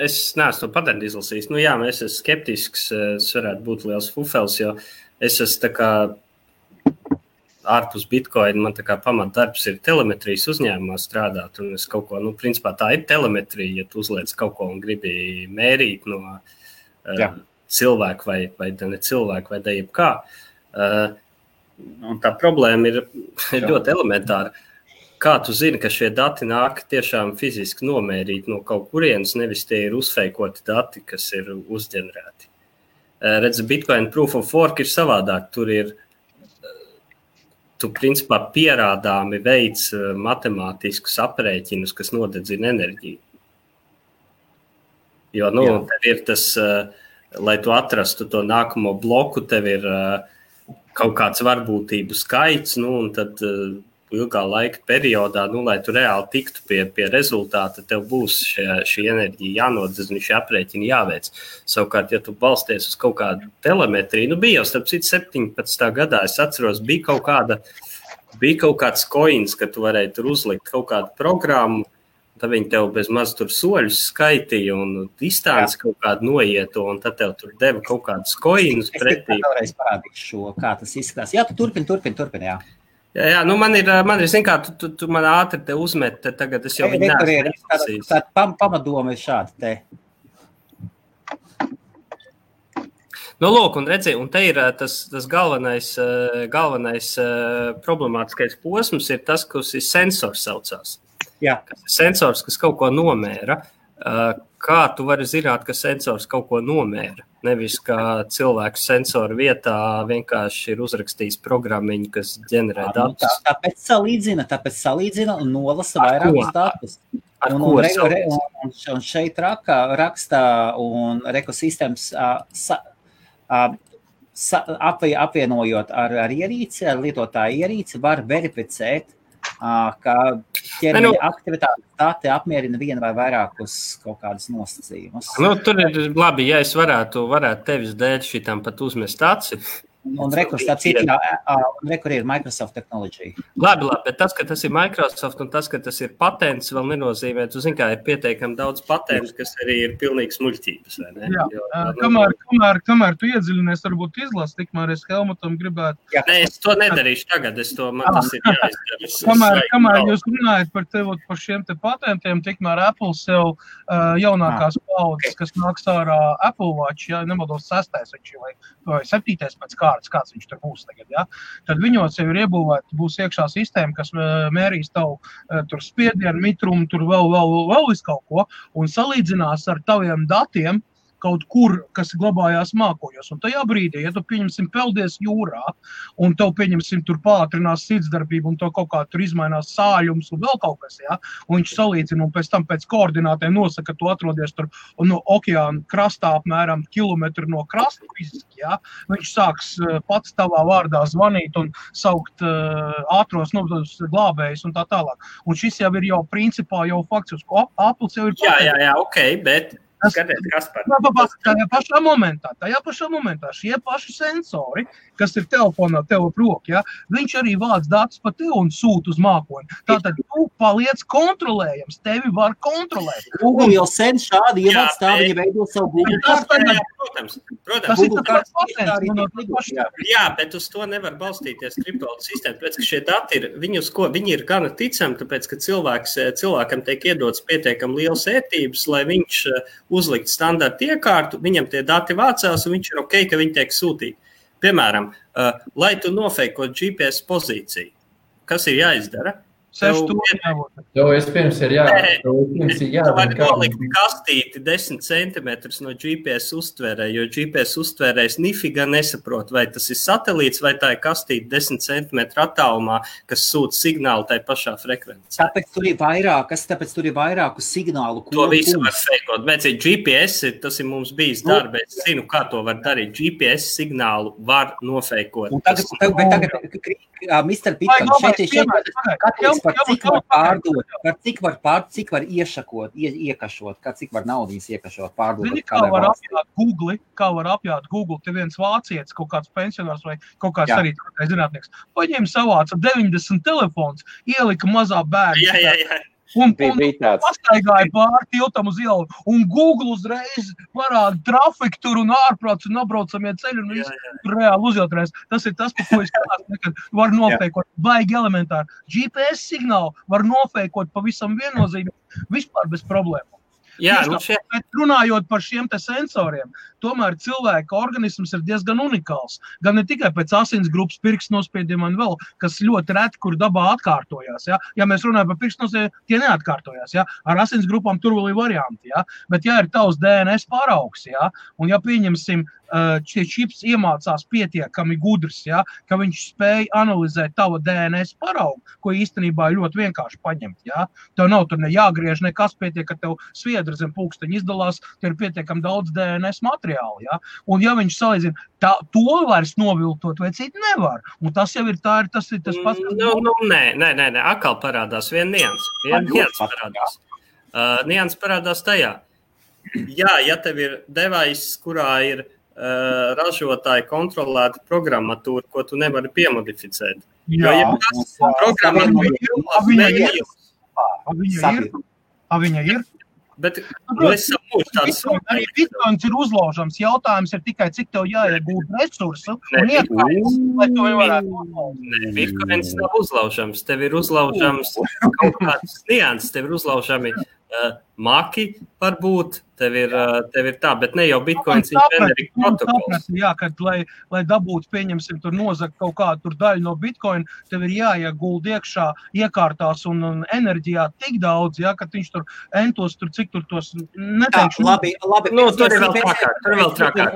Es neesmu to patentu izlasījis. Es esmu skeptisks, es varētu būt liels fufels, jo es esmu tā kā ārpus Bitcoin, man tā kā pamatdarbs ir telemetrijas uzņēmumā strādāt, un es kaut ko, principā tā ir telemetrija, ja tu uzliec kaut ko un gribi mērīt no cilvēku vai ne cilvēku vai jebkā. Un tā problēma ir ļoti elementāra. Kā tu zini, ka šie dati nāk tiešām fiziski nomērīt no kaut kurienes, nevis tie ir uzfeikoti dati, kas ir uzģenerēti. Redzi, Bitcoin Proof of Work ir savādāk. Tur ir tu principā pierādāmi veids matemātiskus aprēķinus, kas nodedzina enerģiju. Jo, tev ir tas, lai tu atrastu to nākamo bloku, tev ir kaut kāds varbūtību skaits, un tad ilgā laika periodā, lai tu reāli tiktu pie rezultāta, tev būs šī enerģija jānodedzina, šī aprēķina jāveic. Savukārt, ja tu balsties uz kaut kādu telemetriju, bija jau starp citu 17. gadā, es atceros, bija kaut kāds coins, ka tu varēji tur uzlikt kaut kādu programmu, tad viņi tev bez maz tur soļus skaitīja un distanci kaut kādu noietu, un tad tev tur deva kaut kādus coinus pretī. Es vēlreiz parādīšu šo, kā tas izskatās. Jā, tu turpini, jā. Jā, man ir zin kā, tu man ātri te uzmet, tagad es jau viņu neesmu. Tāda pamatdoma ir šāda te. Lūk, un redzi, un te ir tas galvenais problemātiskais posms ir tas, kas ir sensors saucās. Jā. Sensors, kas kaut ko nomēra. Kā tu vari zināt, ka sensors kaut ko nomēra? Nevis, ka cilvēks sensoru vietā vienkārši ir uzrakstījis programmiņu, kas ģenerē datus. Tāpēc salīdzina un nolasa vairākus datus. Un šeit raksta un ekosistēmas apvienojot ar ierīci, ar lietotāju ierīci, var verificēt, ka ķermeņa aktivitātes dati apmierina vienu vai vairākus kaut kādus nosacījumus. Tur ir labi, ja es varētu tevis dēļ šitam pat uzmest aci. Un rekur ir Microsoft Technology. Labi, bet tas, ka tas ir Microsoft un tas, ka tas ir patents, vēl nenozīmē. Tu zini, kā ir pietiekami daudz patentu, kas arī ir pilnīgi smuļķības, vai ne? Jā, kamēr tu iedziļinies, varbūt izlasi, tikmēr es Helmutam gribētu. Nē, es to nedarīšu tagad, man tas ir jāizdara. Kamēr jūs runājat par šiem te patentiem, tikmēr Apple sev jaunākās paudzes, kas nāks ārā Apple Watch, ja nemaldos 6. vai 7. pēc kāds viņš tur būs tagad, ja? Tad viņos jau ir iebūvēta, būs iekšā sistēma, kas mērīs tavu tur spiedienu, mitrumu, tur vēl visu kaut ko, un salīdzinās ar taviem datiem kaut kur, kas glabājās mākoņos. Un tajā brīdī, ja tu, pieņemsim, peldies jūrā, un tev, pieņemsim, tur pātrinās sirdsdarbību, un tev kaut kā tur izmainās sāļums un vēl kaut kas, ja? Un viņš salīdzina, un pēc tam pēc koordinātēm nosaka, ka tu atrodies tur no okeāna krastā apmēram kilometru no krasta fiziski, ja? Viņš sāks pats tavā vārdā zvanīt un saukt ātros glābējus un tā tālāk. Un šis jau ir jau principā jau fakts, uz ko Apples jau ir pateicis. Jā, ok, bet skatiet, kas par... Tajā pašā momentā šie paši sensori, kas ir telefonā tev prok, ja, viņš arī vāc datus pa tev un sūt uz mākoņu. Tātad tu paliec kontrolējams, tevi var kontrolēt. Google jau sen šādi ievāc tā, viņi veido savu Google kartu. Protams. Jā, bet uz to nevar balstīties kriptovalūtu sistēma, tāpēc, ka šie dati ir, viņi ir gana ticami, tāpēc, ka cilvēkam tiek iedots pietiekami liels ētības, lai viņš uzlikt standarta iekārtu, viņam tie dati vācās, un viņš ir ok, ka viņi tiek sūtīti. Piemēram, lai tu nofeikot GPS pozīciju, kas ir jāizdara? Tev vispirms ir jādara. Tu vari nolikt kastīti 10 centimetrus no GPS uztvērē, jo GPS uztvērējs nifiga nesaprot, vai tas ir satelīts, vai tā ir kastīti 10 centimetru attālumā, kas sūt signālu tai pašā frekvencē. Tāpēc tur ir vairāku signālu. To visu var feikot. Bet GPS, tas ir mums bijis darba, es zinu, kā to var darīt. GPS signālu var nofeikot. Un tagad Mr. Bitcoin, šeit par cik var pārdot, cik var iekašot, cik var naudas iekašot, pārdot. Zini, kā var apjāt Google, te viens vācietis, kaut kāds pensionārs vai kaut kāds arī zinātnieks, paņēma savāca 90 telefons, ielika mazā bērnu. Jā. Un pastaigāja pāri tiltam uz ielu, un Google uzreiz parāda trafiku tur un ārprāts un apbraucamie ceļi, un viss reāli uzjautrēs. Tas ir tas, par ko es skatās, nekad var nofeikot, baigi elementāri. GPS signālu var nofeikot pavisam viennozīmīgi, vispār bez problēmu. Jā, Bet runājot par šiem te sensoriem, tomēr cilvēka organisms ir diezgan unikāls. Gan ne tikai pēc asinsgrupas pirkstu nospiediem un vēl, kas ļoti reti, kur dabā atkārtojās. Ja mēs runājam par pirkstu nospiediem, tie neatkārtojās. Ar asinsgrupām tur vēl ir varianti. Bet ja ir tavs DNS paraugs, un ja pieņemsim šie čips iemācās pietiekami gudrs, ja, ka viņš spēj analizēt tava DNS paraugu, ko īstenībā ļoti vienkārši paņemt. Ja. Tev nav tur ne jāgriež nekas, pietiek, ka tev sviedra zem pulksteņa izdalās, tev ir pietiekami daudz DNS materiālu. Ja. Un ja viņš salīdzina, to vairs noviltot vai citu nevar. Un tas jau ir tas pats. Nē, atkal parādās nians parādās. Nians parādās tajā. Jā, ja tev ir device, kurā ir ražotāji kontrolēta programmatūra, ko tu nevari piemodificēt. Jā, viņa ir. Bet es saprotu, tāds arī Bitcoins ir uzlaužams. Jautājums ir tikai, cik tev jāiegūt resursu un iekājums, lai to varētu uzlaužam. Nē, Bitcoins nav uzlaužams. Tev ir uzlaužams kaut kāds nians, tev ir uzlaužami maki varbūt, tev ir tā, bet ne jau Bitcoins ir generic protokols. Jā, kad lai dabūtu, pieņemsim, tur nozagt kaut kādu tur daļu no Bitcoin, tev ir jāieguld iekšā iekārtās un enerģijā tik daudz, jā, kad viņš tur entos, tur cik tur tos neteikšu. Labi. Nu, tur ir vēl trakāk.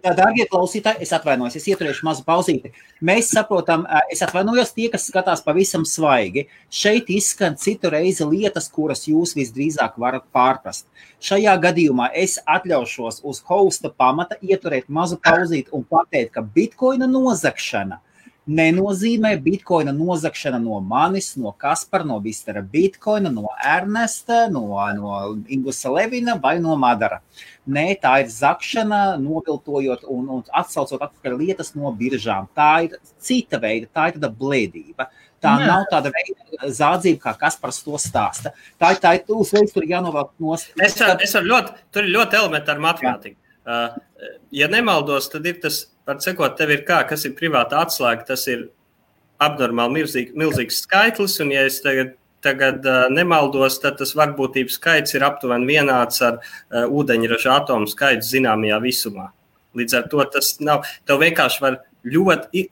Dārgie klausītāji, es atvainojos, es ieturēšu mazu pauzīti. Mēs saprotam, es atvainojos tie, kas skatās pavisam svaigi. Šeit izskan citu reizi lietas, kuras jūs visdrīzāk varat pārprast. Šajā gadījumā es atļaušos uz hosta pamata ieturēt mazu pauzīti un pateikt, ka Bitcoina nozagšana nenozīmē Bitcoina nozagšana no manis, no Kaspara, no Mistera Bitcoina, no Ernesta, no Ingusa Levina vai no Madara. Nē, tā ir zakšana, noviltojot un atsaucot atpakaļ lietas no biržām. Tā ir cita veida, tā ir tāda blēdība. Tā nav tāda veida zādzība, kā Kaspars to stāsta. Tā ir uzreiz, tur jānovelk nost. Tur ir ļoti elementāra matemātika. Ja nemaldos, tad ir tas, var sekot, tev ir kas ir privāta atslēga, tas ir abnormāli milzīgs skaitlis, un ja es tagad nemaldos, tad tas varbūtības skaits ir aptuveni vienāds ar ūdeņraža atomu skaitu zināmajā visumā. Līdz ar to tas nav, tev vienkārši var ļoti,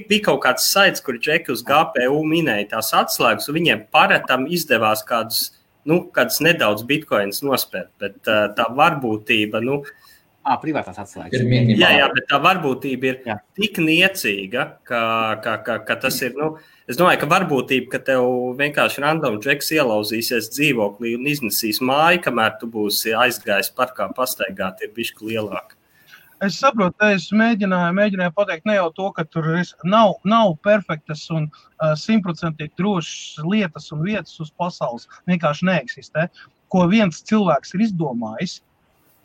bija kaut kāds saits, kur džeki uz GPU minēja tās atslēgas, un viņiem paretam izdevās kādus nedaudz bitcoins nospērt, bet tā varbūtība, privātās atslēgas. Jā, bet tā varbūtība ir tik niecīga, ka tas ir, es domāju, ka varbūtība, ka tev vienkārši random džeks ielauzīsies dzīvoklī un iznesīs māju, kamēr tu būsi aizgājis parkā pastaigāt, ir bišķi lielāka. Es saprotu, es mēģināju pateikt ne jau to, ka tur nav perfektas un 100% drošas lietas un vietas uz pasaules, vienkārši neeksistē. Ko viens cilvēks ir izdomājis,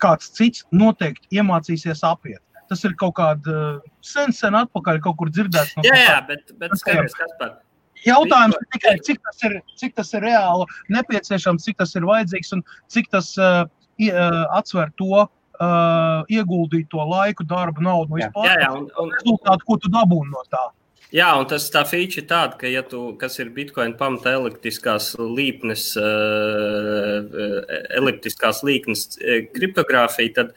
kāds cits noteikti iemācīsies apiet. Tas ir kaut kāda sen atpakaļ kaut kur dzirdēts. Jā, bet skaties, Kaspar. Jautājums ir tikai, cik tas ir reāli nepieciešams, cik tas ir vajadzīgs un cik tas atsver to ieguldīt to laiku, darbu, naudu vispār. Un rezultātu, ko tu dabūni no tā. Jā, un tā feature ir tāda, ka ja tu, kas ir Bitcoin pamata elliptiskās līknes kriptogrāfija, tad,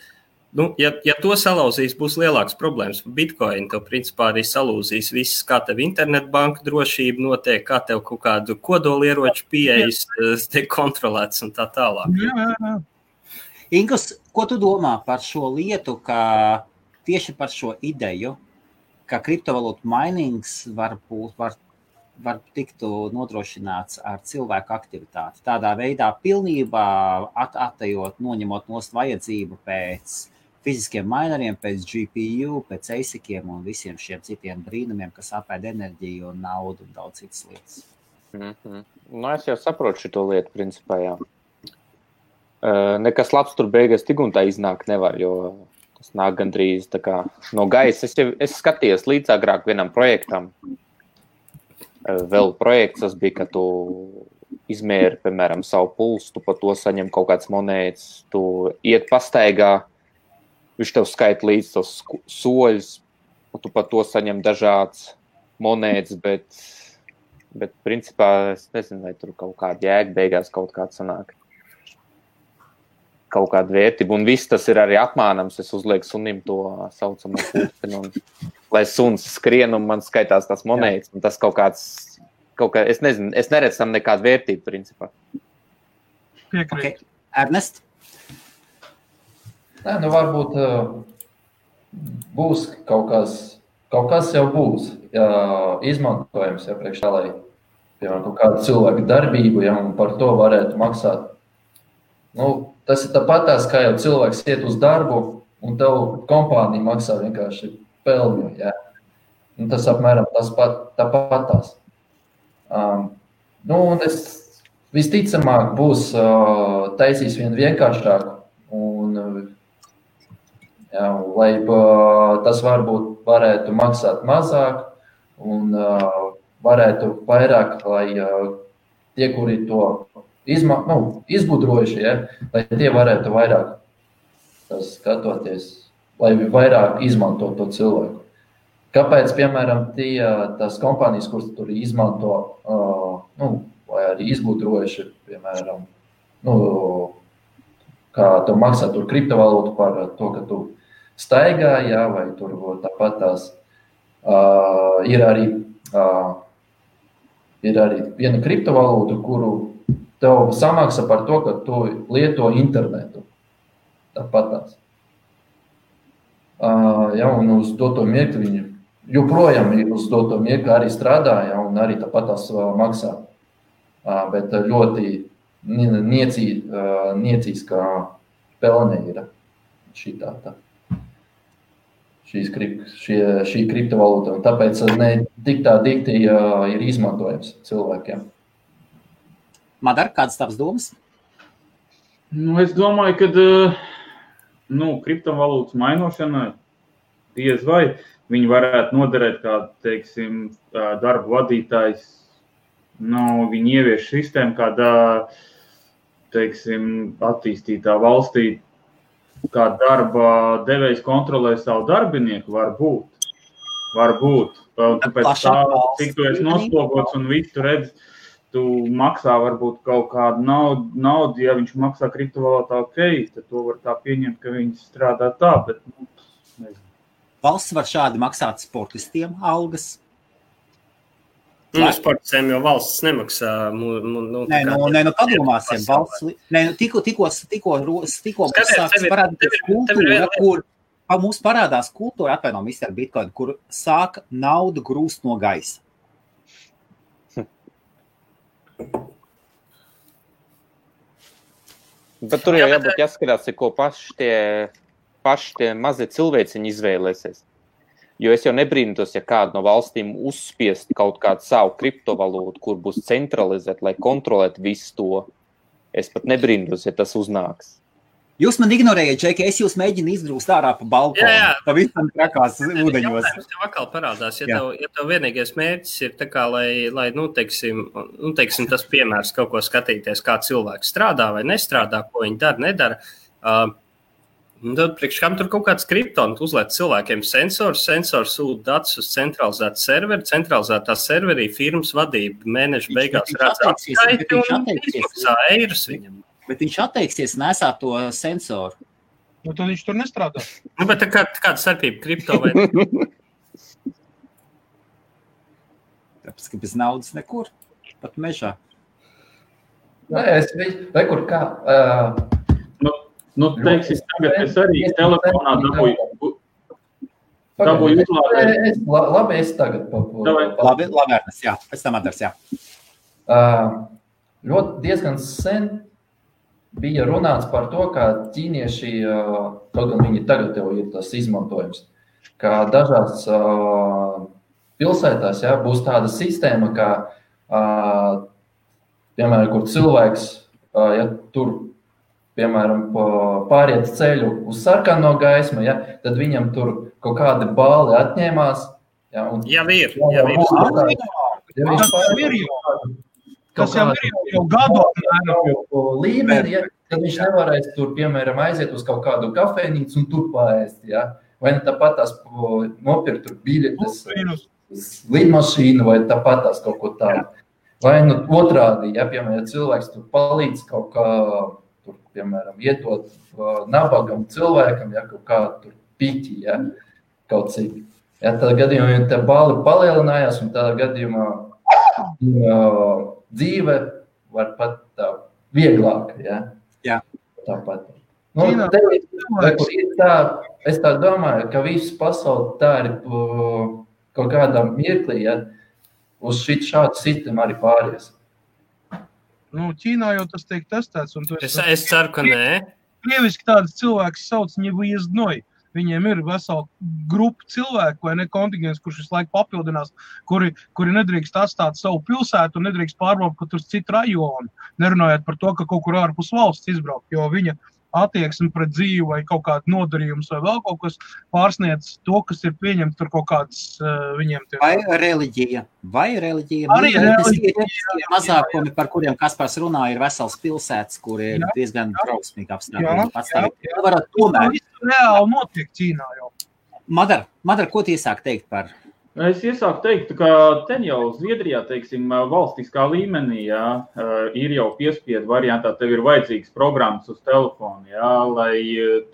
ja to salauzīs, būs lielāks problēmas. Bitcoin tev principā arī salūzīs viss, kā tev internetbanka drošība notiek, kā tev kaut kādu kodolieroču pieejas tiek kontrolēts un tā tālāk. Jā. Ingus, ko tu domā par šo lietu, ka tieši par šo ideju, ka kriptovalūtu mainings var tiktu nodrošināts ar cilvēku aktivitāti. Tādā veidā pilnībā atejot, noņemot nost vajadzību pēc fiziskiem mineriem, pēc GPU, pēc ASICiem un visiem šiem citiem brīnumiem, kas apēd enerģiju un naudu un daudz citas lietas. Es jau saprotu šito lietu, principā, jā. Nekas labs tur beigās tik un tā iznāk nevar, jo tas nāk gandrīz tā kā no gaisa. Es skatījos līdz agrāk vienam projektam. Vēl projekts tas bija, ka tu izmēri, piemēram, savu pulsu, tu pa to saņem kaut kāds monētas, tu iet pastaigā, viņš tev skaita līdz tos soļus, un tu pa to saņem dažāds monētas, bet principā es nezinu, vai tur kaut kāda jēga beigās kaut kāds sanāk. Kaut kāda vērtība, un viss tas ir arī apmānams. Es uzlieku sunim to saucamo pulksteni, un lai suns skrien, un man skaitās tās monētas, un tas kaut kāds, es nezinu, es neredzu tam nekādu vērtību, principā. Piekrīt. Okay. Ernest? Nē, varbūt būs kaut kas jau būs izmantojams, ja priekš tā, lai, piemēram, kaut kādu cilvēku darbību, ja, un par to varētu maksāt. Nu, tas ir tāpatās, kā jau cilvēks iet uz darbu, un tev kompānija maksā vienkārši pelņu, ja. Un tas apmēram tāpatās. Nu, un es visticamāk būs taisīs vien vienkāršāku, un jā, lai tas varētu maksāt mazāk, un varētu vairāk, lai tie, kuri to izgudrojuši, ja, lai tie varētu vairāk skatoties, lai vairāk izmanto to cilvēku. Kāpēc, piemēram, tās kompānijas, kuras tur izmanto, vai arī izgudrojuši, piemēram, kā tu maksā tur kriptovalūtu par to, ka tu staigā, jā, vai tur tāpat tās ir arī viena kriptovalūta, kuru tev samaksā par to, ka tu lieto internetu. Tāpat tās. Ja, un uz doto mirkli viņi joprojām uz doto mirkli arī strādā, ja, un arī tāpat tās maksā. Bet ļoti niecīskā pelne ir šī kriptovalūta, un tāpēc ne tik tā dikti ir izmantojams cilvēkiem. Madar, kādas tavas domas? Es domāju, ka kriptovalūtas mainošanai diez vai viņi varētu noderēt kā, teiksim, darba vadītājs. Viņi ievieš sistēmu kādā, teiksim, attīstītā valstī, kā darba devējs kontrolē savu darbinieku, var būt. Un tāpēc tā, cik tu esi noslogots un visu tu redz, tu maksā varbūt kaut kādu naudu, ja viņš maksā kriptovalūtā, tad to var tā pieņemt, ka viņi strādā tā, bet, nezinu. Valsts var šādi maksāt sportistiem algas? Sportistiem jau valsts nemaksā. Padomāsim. Tikko sāks parādīties kultūra, kur mums parādās kultūra, atvainojam, Mr. Bitcoin, kur sāk naudu grūst no gaisa. Bet tur jau jābūt jāskatās, ko paši tie mazie cilvēciņi izvēlēsies. Jo es jau nebrīnos, ja kādu no valstīm uzspiest kaut kādu savu kriptovalūtu, kur būs centralizēt, lai kontrolētu visu to. Es pat nebrīnos, ja tas uznāks. Jūs man ignorējat, Džeki, es jūs mēģinu izgrūst ārā pa balkonu. Jā. Pa visam trakās ūdeņos. Jautājums tev atkal parādās, ja tev vienīgais mērķis ir tā kā, lai teiksim, tas piemērs kaut ko skatīties, kā cilvēks strādā vai nestrādā, ko viņi dara, nedara. Tad priekš kam tur kaut kāds kriptons uzliek cilvēkiem sensors sūta datus uz centralizētu serveri, centralizētā serverī firmas vadība mēneša beigās redz atskaiti un izmaksā eirus viņam. Bet viņš atteiksies nesāt to sensoru. Tad viņš tur nestrādā. Bet kāda starpība kripto vai? Tāpēc, ka bez naudas nekur, pat mežā. Rekur kā... teiksim, tagad es arī telefonā dabūju uzlādēt. Labi, es tagad Labi, Ernest, jā. Pēc tam Adars, jā. Ļoti diezgan sen bija runāts par to, ka ķīnieši, kaut gan viņi tagad jau ir tas izmantojums, ka dažās pilsētās būs tāda sistēma, ka, piemēram, kur cilvēks, ja tur, piemēram, pāriet ceļu uz sarkano gaismu, tad viņam tur kaut kādi bāli atņēmās. Jau ir. Tas jau ir jau gadu līmeni, tad viņš nevarēs tur, piemēram, aiziet uz kaut kādu kafejnīcu un tur paēst. Vai ne tāpat tās nopirkt tur biļetes, lidmašīnu vai tāpat tās kaut ko tādu. Vai otrādi, piemēram, cilvēks tur palīdz kaut kā, tur, piemēram, ietot nabagam cilvēkam, kaut kā tur piķi, kaut cik. Tādā gadījumā tā bāli palielinājās un tādā gadījumā dzīve var pat tā vieglāk, Jā. Tāpat. Ķīnā kur ir tā, es tā domāju, ka viss pasauli tā ir kaut kādā mirklī, ja, uz šādu sistēmu arī pāries. Nu, Ķīnā jau tas tiek testēts. Un es ceru, ka nē. Krieviski tādas cilvēks sauc ņevuizdnoj. Viņiem ir vesela grupa cilvēku, vai ne kontingents, kurš visu laiku papildinās, kuri nedrīkst atstāt savu pilsētu un nedrīkst pārbraukt pat uz citu rajonu, nerunājot par to, ka kaut kur ārpus valsts izbraukt, jo viņa attieksme pret dzīvi vai kaut kādu nodarījumus vai vēl kaut kas pārsniedz to, kas ir pieņemts tur kaut kādas viņiem. Vai reliģija. Arī reliģija. Mazākumi, par kuriem Kaspars runā, ir vesels pilsētas, kur ir diezgan drausmīgi apstākļi. Reāli notiek Ķīnā jau. Madar, ko tu iesāk teikt par? Es iesāku teikt, ka ten jau Zviedrijā, teiksim, valstiskā līmenī, jā, ir jau piespiedu variantā, tev ir vajadzīgas programmas uz telefonu, jā, lai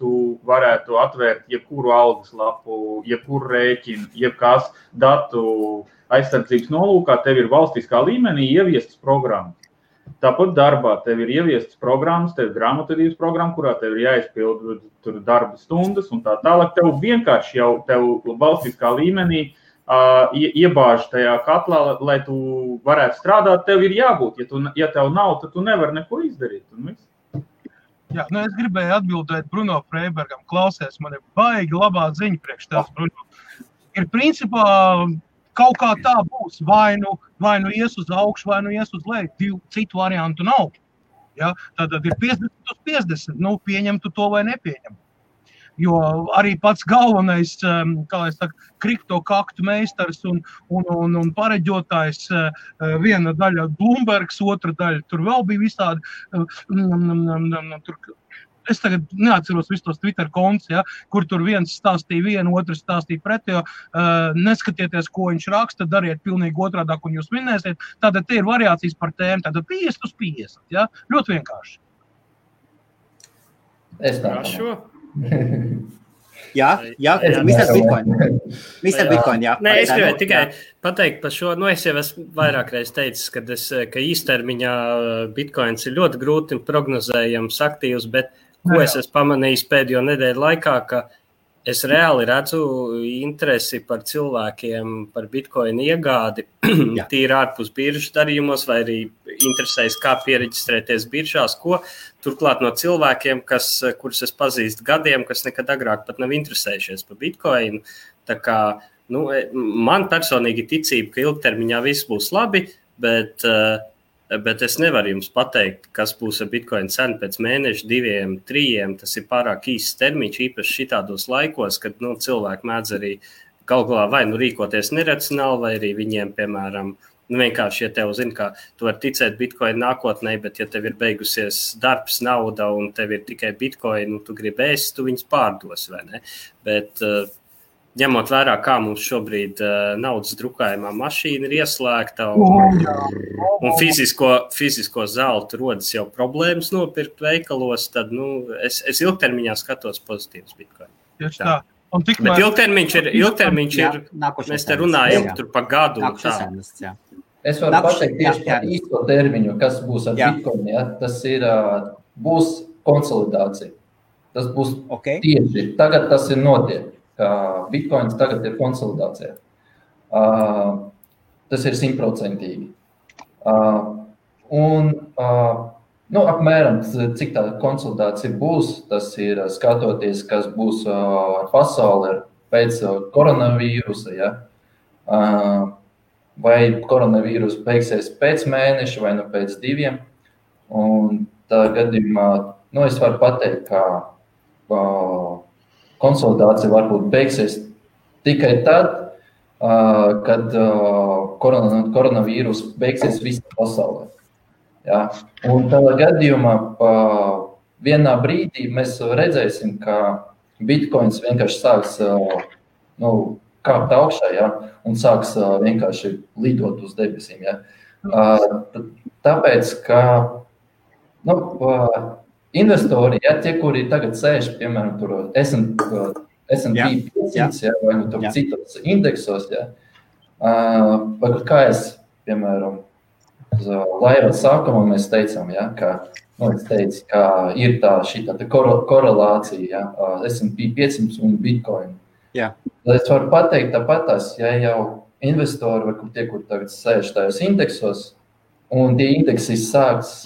tu varētu atvērt jebkuru algas lapu, jebkuru rēķinu, jebkās datu aizsardzības nolūkā, tev ir valstiskā līmenī ieviestas programmas. Tāpat darbā tev ir ieviestas programmas, tev ir grāmatvedības programma, kurā tev ir jāizpild tur darba stundas un tā tālāk. Tev vienkārši jau tev valstiskā līmenī iebāž tajā katlā, lai tu varētu strādāt, tev ir jābūt. Ja tev nav, tad tu nevari neko izdarīt. Jā, es gribēju atbildēt Bruno Freibergam. Klausies, man ir baigi labā ziņa priekš tās, Bruno. Ir principā kaut kā tā būs. Vai nu ies uz augšu, vai nu ies uz leju. Citu variantu nav. Ja? Tātad ir 50 uz 50. Nu, pieņem tu to vai nepieņem. Jo arī pats galvenais, kā es saku, kriptokaktu meistars un pareģotājs, viena daļa Bloombergs, otra daļa, tur vēl bija visādi, es tagad neatceros visus tos Twitter kontus, ja, kur tur viens stāstīja vienu, otrs stāstīja pretējo, neskatieties, ko viņš raksta, dariet pilnīgi otrādāk, un jūs minēsiet, tātad te ir variācijas par tēmu, tātad 50 uz 50, ja, ļoti vienkārši. Es tā šo. Jā, Mr. Bitcoin, jā. Nē, es gribēju tikai pateikt par šo, es jau esmu vairāk reiz teicis, ka īstermiņā Bitcoins ir ļoti grūti prognozējams aktīvs, bet ko es esmu pamanījis pēdējo nedēļu laikā, ka es reāli redzu interesi par cilvēkiem, par Bitcoin iegādi, tīri ārpus biržas darījumos, vai arī interesēs, kā piereģistrēties biržās, ko turklāt no cilvēkiem, kurus es pazīstu gadiem, kas nekad agrāk pat nav interesējušies par Bitcoinu. Tā kā, man personīgi ticība, ka ilgtermiņā viss būs labi, bet es nevaru jums pateikt, kas būs ar Bitcoin cenu pēc mēneša, 2, 3. Tas ir pārāk īsts termiņš, īpaši šitādos laikos, kad cilvēki mēdz arī galu galā vai rīkoties neracionāli, vai arī viņiem, piemēram, vienkārši, ja tev zina, ka tu vari ticēt Bitcoin nākotnē, bet ja tev ir beigusies darbs, nauda un tev ir tikai Bitcoin, tu gribi ēst, tu viņus pārdos, vai ne? Bet ņemot vērā, kā mums šobrīd naudas drukājumā mašīna ir ieslēgta un fizisko zeltu rodas jau problēmas nopirkt veikalos, tad es ilgtermiņā skatos pozitīvs Bitcoin. Tieši tā. Bet ilgtermiņš ir mēs te runājam tur pa gadu. Es varu pateikt tieši par īsto termiņu, kas būs ar Bitcoin. Ja? Tas ir, būs konsolidācija. Tas būs tieši. Tagad tas ir notiek. Bitcoins tagad ir konsolidācija. Tas ir 100%. Apmēram, cik tā konsolidācija būs, tas ir skatoties, kas būs ar pasauli pēc koronavīrusa, ja? Vai koronavīrus beigsies pēc mēneša vai pēc 2. Un tā gadījumā, es varu pateikt, ka konsolidācija varbūt beigsies tikai tad, kad koronavīrus beigsies visā pasaulē. Ja? Un tādā gadījumā vienā brīdī mēs redzēsim, ka Bitcoins vienkārši sāks kāpt augšā, ja? Un sāks vienkārši lidot uz debesīm. Ja? Tāpēc, ka investori, ja, tie, kuri tagad sēž, piemēram, tur S&P 500, ja, vai tur citos indeksos, ja, kā es, piemēram, laiva sākumā mēs teicām, ja, ka es teicu, ka ir šī korelācija, ja, S&P 500 un Bitcoin. Jā. Es varu pateikt tāpatās, ja jau investori, kur tagad sēž tajos indeksos, un tie indeksi sāks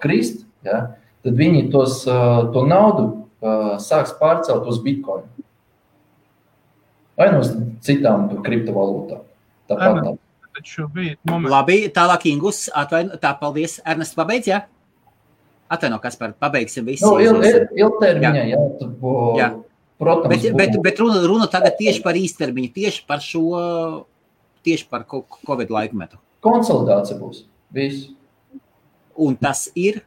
krist, ja, tad viņi to naudu sāks pārcelt uz Bitcoin. Vai no citām kriptovalūtām. Tāpat. Labi, tālāk Ingus, paldies. Ernest, pabeidz, jā? Atvaino, Kaspar, pabeigsim visi. Ilgtermiņā, jā. Protams. Bet runa tagad tieši par īstermiņu, tieši par Covid laikmetu. Konsolidācija būs. Viss. Un tas ir?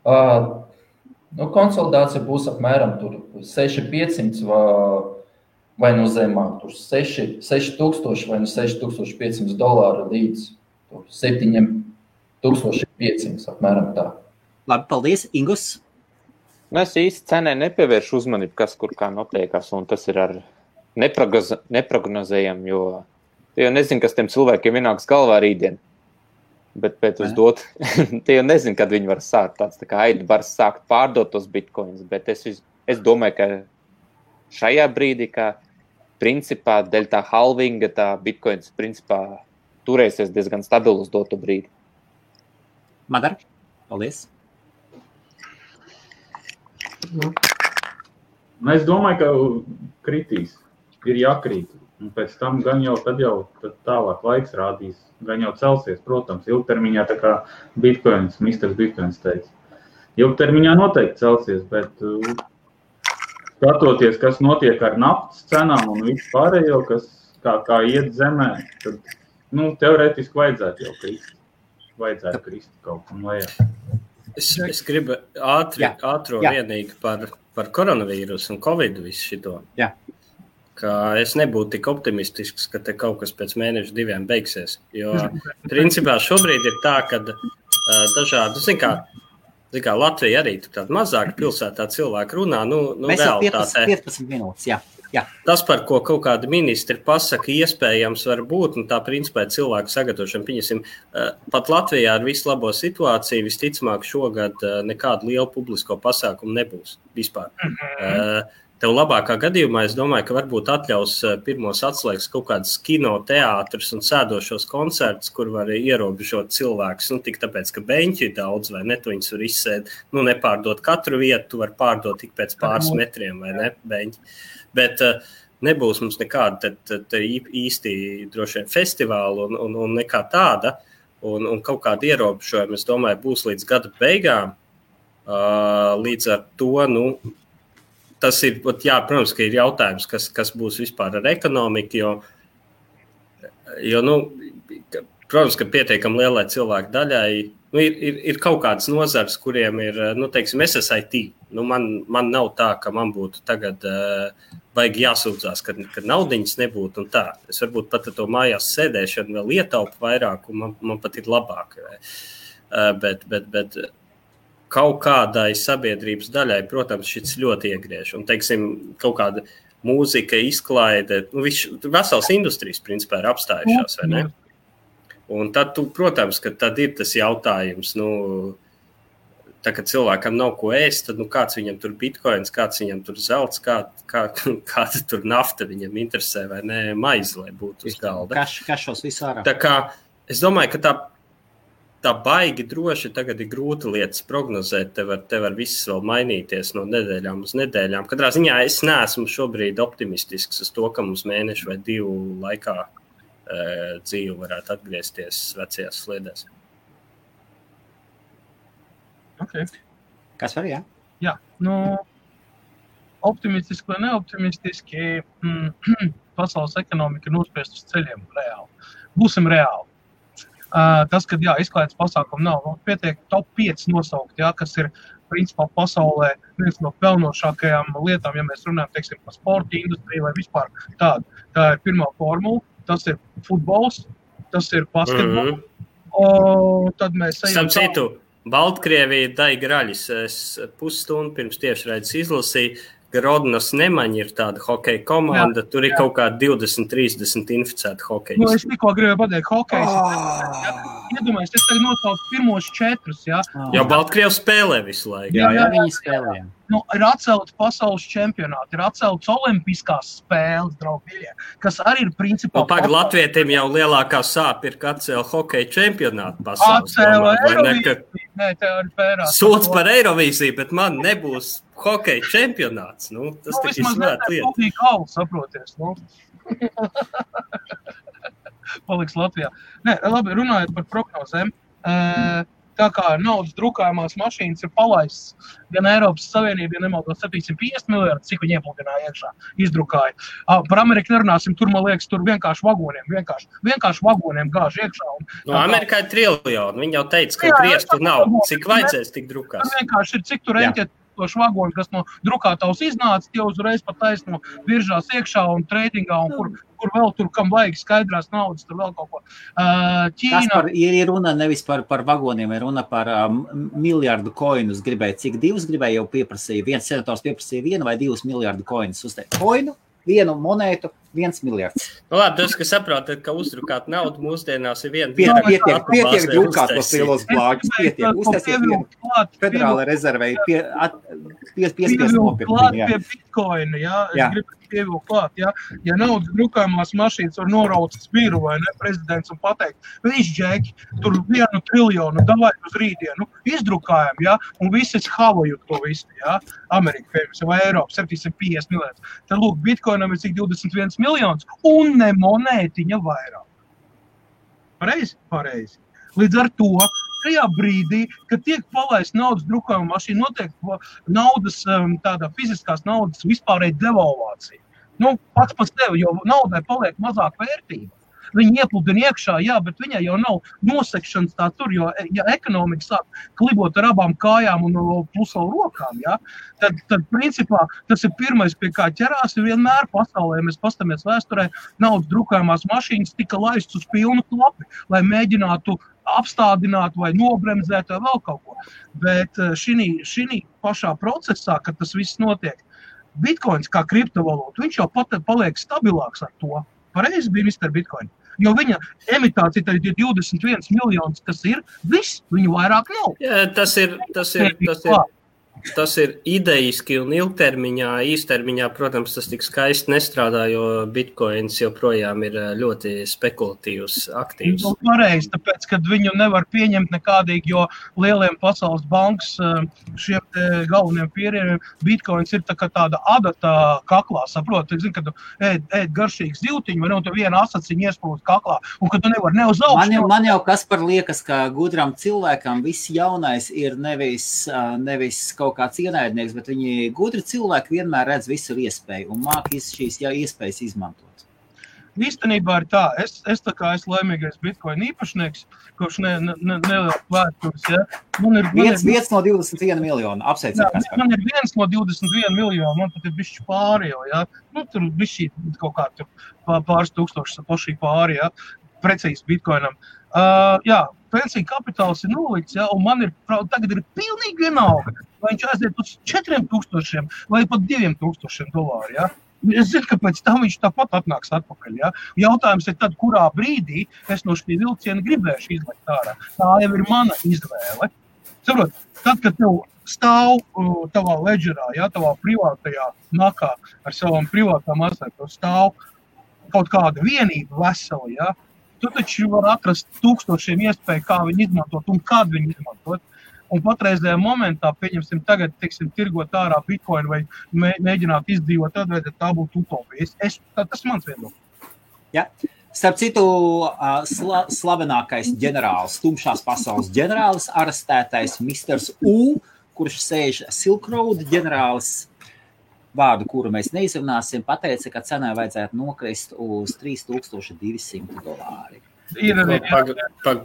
Konsolidācija būs apmēram 6,500 vai no zemāk, 6,000 vai no $6,500 līdz 7,500 apmēram tā. Labi, paldies, Ingus. Es īsti cenē nepievēršu uzmanību, kas kur kā notiekās, un tas ir ar neprognozējam, jo tie jau nezinu, kas tiem cilvēkiem vienāks galvā rītdien. Bet uz dot, tie jau nezinu, kad viņi var sākt tāds, tā kā Aida var sākt pārdot tos bitcoins, bet es domāju, ka šajā brīdī, ka principā dēļ tā halvinga, tā bitcoins principā turēsies diezgan stabilu uz dotu brīdi. Madar, paldies. Es domāju, ka kritīs, ir jākrīt. Un pēc tam gan jau, tad tālāk laiks rādīs, gan jau celsies, protams, ilgtermiņā tā kā Bitcoins, Mr. Bitcoins teica. Ilgtermiņā noteikti celsies, bet skatoties, kas notiek ar naftas cenām un visu pārējo, kas kā iet zemē, tad, teorētiski vajadzētu jau krist. Vajadzētu krist kaut kam lejā. Es gribu ātro vienīgi par koronavīrusu un Covid visu šito. Jā. Ka es nebūtu tik optimistisks, ka te kaut kas pēc mēneša 2 beigsies. Jo, principā, šobrīd ir tā, ka dažādi, zin kā Latvija arī tur tāda mazāka pilsētā cilvēki runā, mēs realitātē. 15 minūtes, jā. Tas, par ko kaut kādi ministri pasaka, iespējams var būt, un tā principā ir cilvēku sagatavošana. Pieņemsim, pat Latvijā ar visu labo situāciju visticamāk šogad nekādu lielu publisko pasākumu nebūs vispār. Tev labākā gadījumā, es domāju, ka varbūt atļaus pirmos atslēgas kaut kādas kino, teātrus un sēdošos koncertus, kur var ierobežot cilvēkus. Tik tāpēc, ka beņķi ir daudz, vai ne, tu viņus var izsēd, nepārdot katru vietu, tu var pārdot tik pēc pāris metriem, vai ne, beņķi. Bet nebūs mums nekāda īsti droši vien festivāla un nekā tāda, un kaut kāda ierobežojuma, es domāju, būs līdz gada beigām. Līdz ar to, tas ir, protams, ka ir jautājums, kas būs vispār ar ekonomiku, jo protams, ka pietiekami lielai cilvēku daļai, ir kaut kādas nozars, kuriem ir, teiksim, SSIT. Man nav tā, ka man būtu tagad vajag jāsūdzās, kad naudiņas nebūtu un tā. Es varbūt pat to mājās sēdēšanu vēl ietaupu vairāk, un man pat ir labāk. Bet kaut kādai sabiedrības daļai, protams, šis ļoti iegriež. Un, teiksim, kaut kāda mūzika, izklaide, vesels industrijas, principā, ir apstājušās, vai ne? Un tad, protams, ka tad ir tas jautājums, tā, kad cilvēkam nav ko ēst, tad, kāds viņam tur bitcoins, kāds viņam tur zelts, kāda tur nafta viņam interesē, vai ne, maize, lai būtu uz galda. Kašos visu ārā. Tā kā, es domāju, ka tā baigi droši tagad ir grūta lietas prognozēt, te var viss vēl mainīties no nedēļām uz nedēļām. Katrā ziņā es neesmu šobrīd optimistisks uz to, ka mums mēnešu vai 2 laikā dzīve varētu atgriezties vecajās sliedēs. Okay. Kas var, jā? Jā, optimistiski vai neoptimistiski pasaules ekonomika nospiest uz ceļiem reāli. Būsim reāli. Tas, kad izklaides pasākumu nav, pietiek top 5 nosaukt, kas ir principā pasaulē viens no pelnošākajām lietām, ja mēs runājam, teiksim, par sporta industriju vai vispār tādu. Tā ir pirmā formula, tas ir futbols, tas ir basketbols, tad mēs ejam citu, Baltkrievija Daiga Raļis, es pusstundu pirms tiešraides izlasīju, Grodnas Nemaņa ir tāda hokeja komanda, tur ir kaut kā 20-30 inficēta hokeja. Es tikko gribēju pateikt, hokejs. iedomājies, es tagad nosaucu pirmos 4, jā. Jo Baltkrievs spēlē visu laiku. Jā, viņi spēlē. Nu, ir atcelti pasaules čempionāti, ir atceltas olimpiskās spēles, draugļie, kas arī ir principā... Pagaid, latvietiem jau lielākā sāpe ir, ka atcēla hokeja čempionātu pasaules. Atcēla Eirovīziju. Nē, te arī pērās. Sūdz par Eirovīziju, bet man nebūs hokeja čempionāts. Nu, tas tik izsvēt lieta. Vismaz galvu, saproties. Nu. Paliks Latvijā. Nē, labi, runājot par prognozēm. Tā kā naudas drukājumās mašīnas ir palaists gan Eiropas Savienība, ja nemaldos 750 miljardi, cik viņi iepludināja iekšā, izdrukāja. Par Ameriku nerunāsim, tur, man liekas, tur vienkārši vagoniem gāž iekšā. No Amerikā ir triljoni, viņi jau teica, ka griestu nav, cik vajadzēs tik drukās. Tur vienkārši ir, cik tur eņķēt vagoni, kas no drukātavas iznāca, tie uzreiz pat taisno biržās iekšā un treidingā, un kur vēl tur, kam vajag skaidrās naudas, tur vēl kaut ko. Ķīna... Ir runa nevis par vagoniem, ir runa par miljardu koinus gribēja. Cik 2 gribēja jau pieprasīja? Viens senators pieprasīja 1 vai 2 miljardu koinus uzteikt. Koinu, 1 monētu, 1 miljards. Nu labi, tas, ka saprotat, ka uzdrukāt naudu mūsdienās ir viena... Pietiek drukāt tos lielos blāģus, pietiek. Uztaisiet vienu federāla rezervei, piespies nopirkt. Klāt pie bitcoina, jā. Es gribu pievilkt klāt, jā. Ja naudas drukājumās mašīnas var noraucas biru vai ne, prezidents un pateikt, viņš džeki, tur 1 triljonu, davai uz rītdienu, izdrukājam, jā, un visi havojot to visu, jā. Amerika, piemēram, vai Eiropa, 750 miljonus. Tad lūk, bitcoinam ir cik 21 miljonus un ne monētiņa vairāk. Pareizi. Līdz ar to, tajā brīdī, kad tiek palaist naudas drukājuma mašīna, notiek naudas, tādā fiziskās naudas vispārēji devalvācija. Nu, pats par sevi, jo naudai paliek mazāk vērtība. Viņi iepludina iekšā, jā, bet viņai jau nav nosekšanas tā tur, jo, ja ekonomika sāk klibot ar abām kājām un plus vēl rokām, jā, tad principā tas ir pirmais, pie kā ķerās, ir vienmēr pasaulē, mēs pastamies vēsturē, naudas drukājumās mašīnas tika laists uz pilnu klapi, lai mēģinātu apstādināt vai nobremzēt vai vēl kaut ko. Bet šī pašā procesā, kad tas viss notiek, bitcoins kā kriptovalūta, viņš jau paliek stabilāks ar to. Pareizi bija Mr. Bitcoin. Jo viņa emitācija tad ir 21 miljonus, kas ir viss, viņu vairāk nav. Jā, tas ir idejiski un ilgtermiņā, īstermiņā, protams, tas tik skaisti nestrādā, jo bitcoins joprojām ir ļoti spekulatīvs aktīvs. Pareizi, tāpēc, kad viņu nevar pieņemt nekādīgi, jo lieliem pasaules bankas šiem galveniem pieriem bitcoins ir tā kā tāda adata kaklā, saprot, zin, kad tu ēd garšīgu zivtiņu, vai ne, un tu viena asaciņa iesprūst kaklā, un kad tu nevar ne uz augšu. Man jau kas par liekas, ka gudram cilvēkam viss jaunais ir nevis kaut kāds ienaidnieks, bet viņi gudri cilvēki vienmēr redz visur iespēju un māk šīs iespējas izmantot. Īstenībā ir tā, es tā kā esmu laimīgais bitcoin īpašnieks, kurš neliels vēstures, ja. Viens no 21 miljonu, apsveicam. Man ir 1 no 21 miljonu, man pat ir bišķi pāri jau, ja. Nu, tur bišķi kaut kā tur pāris tūkstošas pašī pāri, ja. Precīzi bitcoinam. Jā, pensija kapitāls ir nolikts, ja, un man tagad ir pilnīgi vienalga, vai viņš aiziet uz 4000 vai pat $2000, ja. Es zinu, ka pēc tam viņš tāpat atnāks atpakaļ, ja. Jautājums ir tad, kurā brīdī es no šī vilciena gribēšu izlaikt ārā. Tā jau ir mana izvēle. Saprot, tad, kad tev stāv tavā ledžerā, ja, tavā privātajā nakā ar savām privātām asēm, stāv kaut kāda vienība vesela, ja. Tu taču var atrast tūkstošiem iespēju, kā viņu izmantot un kad viņu izmantot. Un patreizējā momentā, pieņemsim tagad, tirgot ārā bitcoin vai mēģināt izdzīvot, tad tā būtu utopija. Tas mans viedoklis. Ja. Starp citu, slavenākais ģenerālis, tumšās pasaules ģenerālis, arestētais Misters U, kurš sēž Silk Road ģenerālis, vārdu, kuru mēs neizrunāsim, pateica, ka cenai vajadzētu nokrist uz $3200.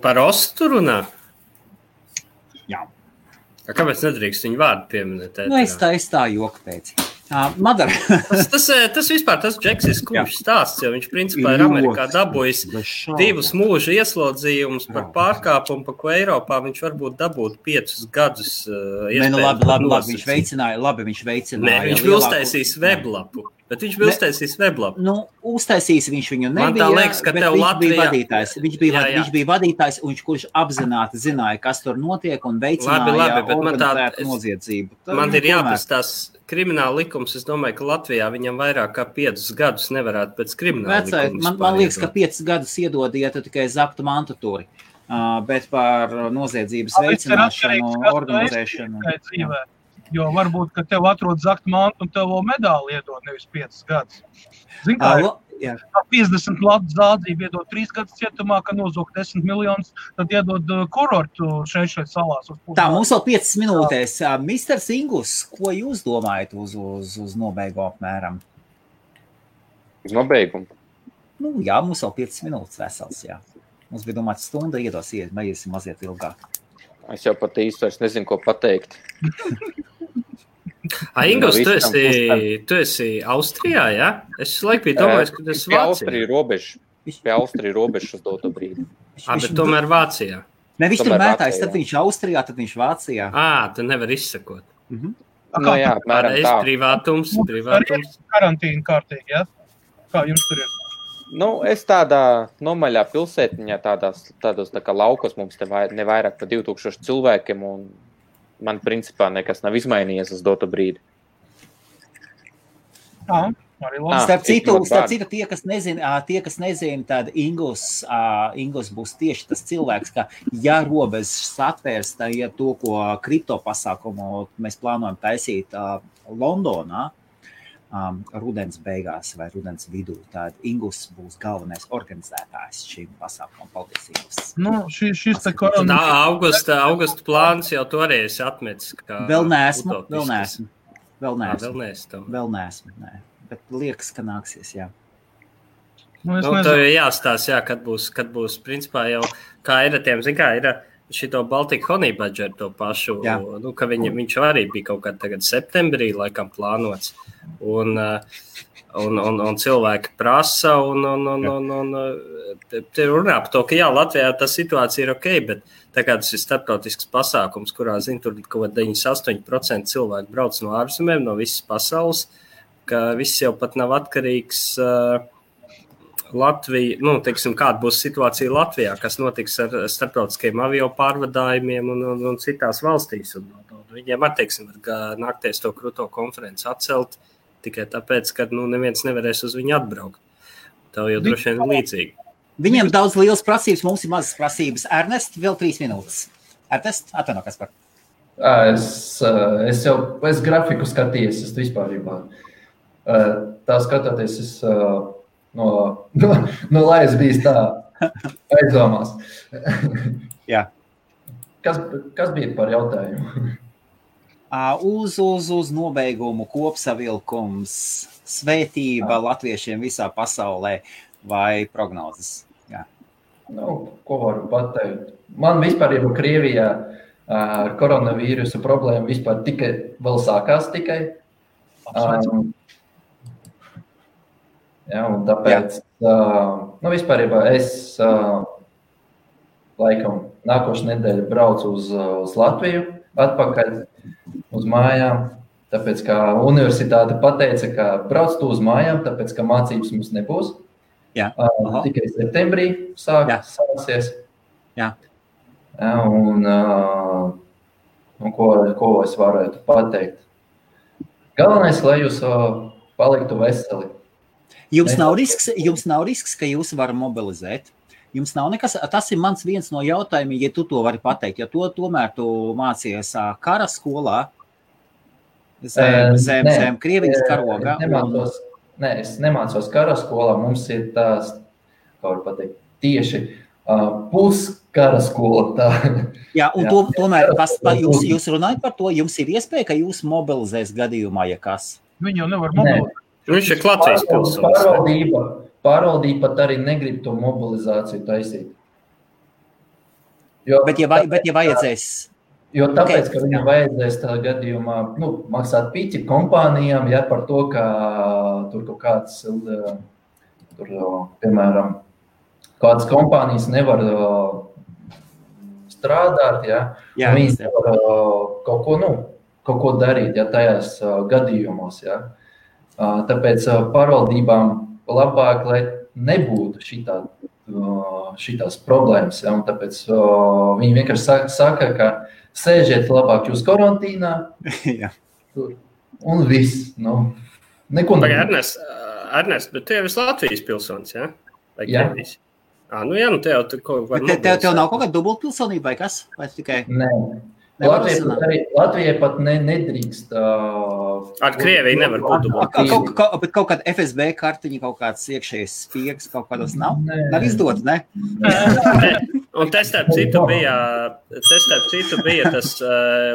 Par ostu runā? Jā. Kāpēc nedrīkst viņu vārdu pieminēt? Nu, es tā joku pēc. Madara. tas vispār, tas Džeks ir skumjš stāsts, jo viņš principā ir Amerikā dabūjis 2 mūža ieslodzījumus par pārkāpumu, pa ko Eiropā viņš varbūt dabūtu 5 gadus. Labi, viņš veicināja. Nē, viņš bija uztaisījis weblapu, Bet viņš bija uztaisījis weblapu. Uztaisījis viņš viņu nebija, Man tā liekas, ka tev Latvijā... Viņš bija vadītājs, kurš apzināti zināja, kas tur notiek un veicināja organizētu noziedzību. Man ir jāprast tās krimināla likums. Es domāju, ka Latvijā viņam vairāk kā 5 gadus nevarētu pēc krimināla likums. Man liekas, ka 5 gadus iedod, ja tu tikai zaktu mantatūri. Bet par noziedzības veicināšanu, organizēšanu. Jo varbūt, ka tev atrod zakt mantu un tev vēl medāli iedod, nevis 5 gadus. Zin kā, 50 latu zādzību iedod 3 gadus cietumā, ka nozog 10 miljonus, tad iedod kurortu šeit salās. Tā, mums vēl 5 minūtēs. Mr. Ingus, ko jūs domājat uz nobeigumu apmēram? Uz nobeigumu? Jā, mums vēl 5 minūtes vesels, jā. Mums bija domāts stunda, iesim mazliet ilgāk. Es jau pat īsti vairs nezinu, ko pateikt. Ingus, tu esi Austrijā, jā? Es laiku biju domājis, ka tu esi Vācijā. Pie Austrija robežas uz doto brīdi. Bet tomēr Vācijā. Ne, viņš tur mētājs, tad viņš Austrijā, tad viņš Vācijā. Tu nevar izsakot. Jā, apmēram tā. Privātums. Karantīna kārtīgi, jā? Kā jums tur ir? Es tādā nomaļā pilsētiņā, tādos tā kā laukos mums te nevairāk par 2000 cilvēkiem, un man principā nekas nav izmainījies uz doto brīdi. Starp citu, tie, kas nezina, tad Ingus būs tieši tas cilvēks, ka ja robežas atvērs, tad ja to, ko kripto pasākumu mēs plānojam taisīt Londonā, rudens beigās vai rudens vidū, tad Ingus būs galvenais organizētājs šīm pasākumam. Paldies, Ingus. Šis te korona... Augusta plāns jau toreiz atmetis. Vēl neesmu. Nē. Bet liekas, ka nāksies, jā. Tev jāstās, jā, kad būs principā jau, kā ir tiem, zin kā, ir šito Baltic Honey Badger to pašu, ka viņš arī bija kaut kādā tagad septembrī laikam plānots. Un cilvēki prasa un te runā par to, ka jā, Latvijā tā situācija ir ok, bet tā kā tas ir starptautisks pasākums, kurā, tur kaut 98% cilvēku brauc no ārzemēm, no visas pasaules, ka viss jau pat nav atkarīgs Latvija, teiksim, kāda būs situācija Latvijā, kas notiks ar starptautiskiem avio pārvadājumiem un citās valstīs. Un viņiem atteiksim, var nākties to kruto konferenci atcelt tikai tāpēc, ka neviens nevarēs uz viņu atbraukt. Tev jau droši vien līdzīgi. Viņiem daudz lielas prasības, mums ir mazas prasības. Ernest, vēl 3 minūtes. Ernest, atvaino, kas par? Es grafiku skatījies, es vispārībā. Tā skatoties, es lai es bijis tā aizdomās. Jā. Kas bija par jautājumu? Uz nobeigumu kopsavilkums, svētība latviešiem visā pasaulē vai prognozes? Jā. Ko varu pateikt? Man vispār jau Krievijā ar koronavīrusu problēmu vispār tikai vēl sākās tikai. Un tāpēc, vispārībā es laikam nākošu nedēļu braucu uz Latviju atpakaļ uz mājām, tāpēc, ka universitāte pateica, ka brauc tu uz mājām, tāpēc, ka mācības mums nebūs. Tikai septembrī sāksies. Ko es varētu pateikt? Galvenais, lai jūs paliktu veseli. Jums nav risks, ka jūs varat mobilizēt. Jums nav nekas, tas ir mans viens no jautājumiem, ja tu to vari pateikt, jo tomēr tu mācies kara skolā, zem Krievijas karoga. Es nemācos kara skolā, mums ir tās, kā var pateikt, tieši puskara skola. Jā, un tomēr jūs runājat par to, jums ir iespēja, ka jūs mobilizēs gadījumā, ja kas? Viņi jau nevar mobilizēt. Viņš ir Latvijas pilsonis. Pārvaldība pat arī negrib to mobilizāciju taisīt. Bet ja vajadzēs... Jo tāpēc, ka viņam vajadzēs tā gadījumā maksāt pīķi kompānijām, par to, ka tur kaut kāds, piemēram, kādas kompānijas nevar strādāt, viņi nevar kaut ko darīt, tajās gadījumos, Tāpēc pārvaldībām labāk, lai nebūtu šitās problēmas. Ja? Un tāpēc viņi vienkārši saka, ka sēžiet labāk jūs karantīnā un viss. Neko nebūtu. Ernest, bet tu jau esi Latvijas pilsonis, ja? Vai Krievijas? Tev nav kaut kāda dubultpilsonība vai kas? Vai tikai... Nē. Latvijai pat nedrīkst. Ar Krieviju nevar būt dubultpilsonība. Bet kaut kāda FSB kartiņa, kaut kāds iekšējais spiegs, kaut kādos nav? Nav izdot, ne? Un te starp citu bija tas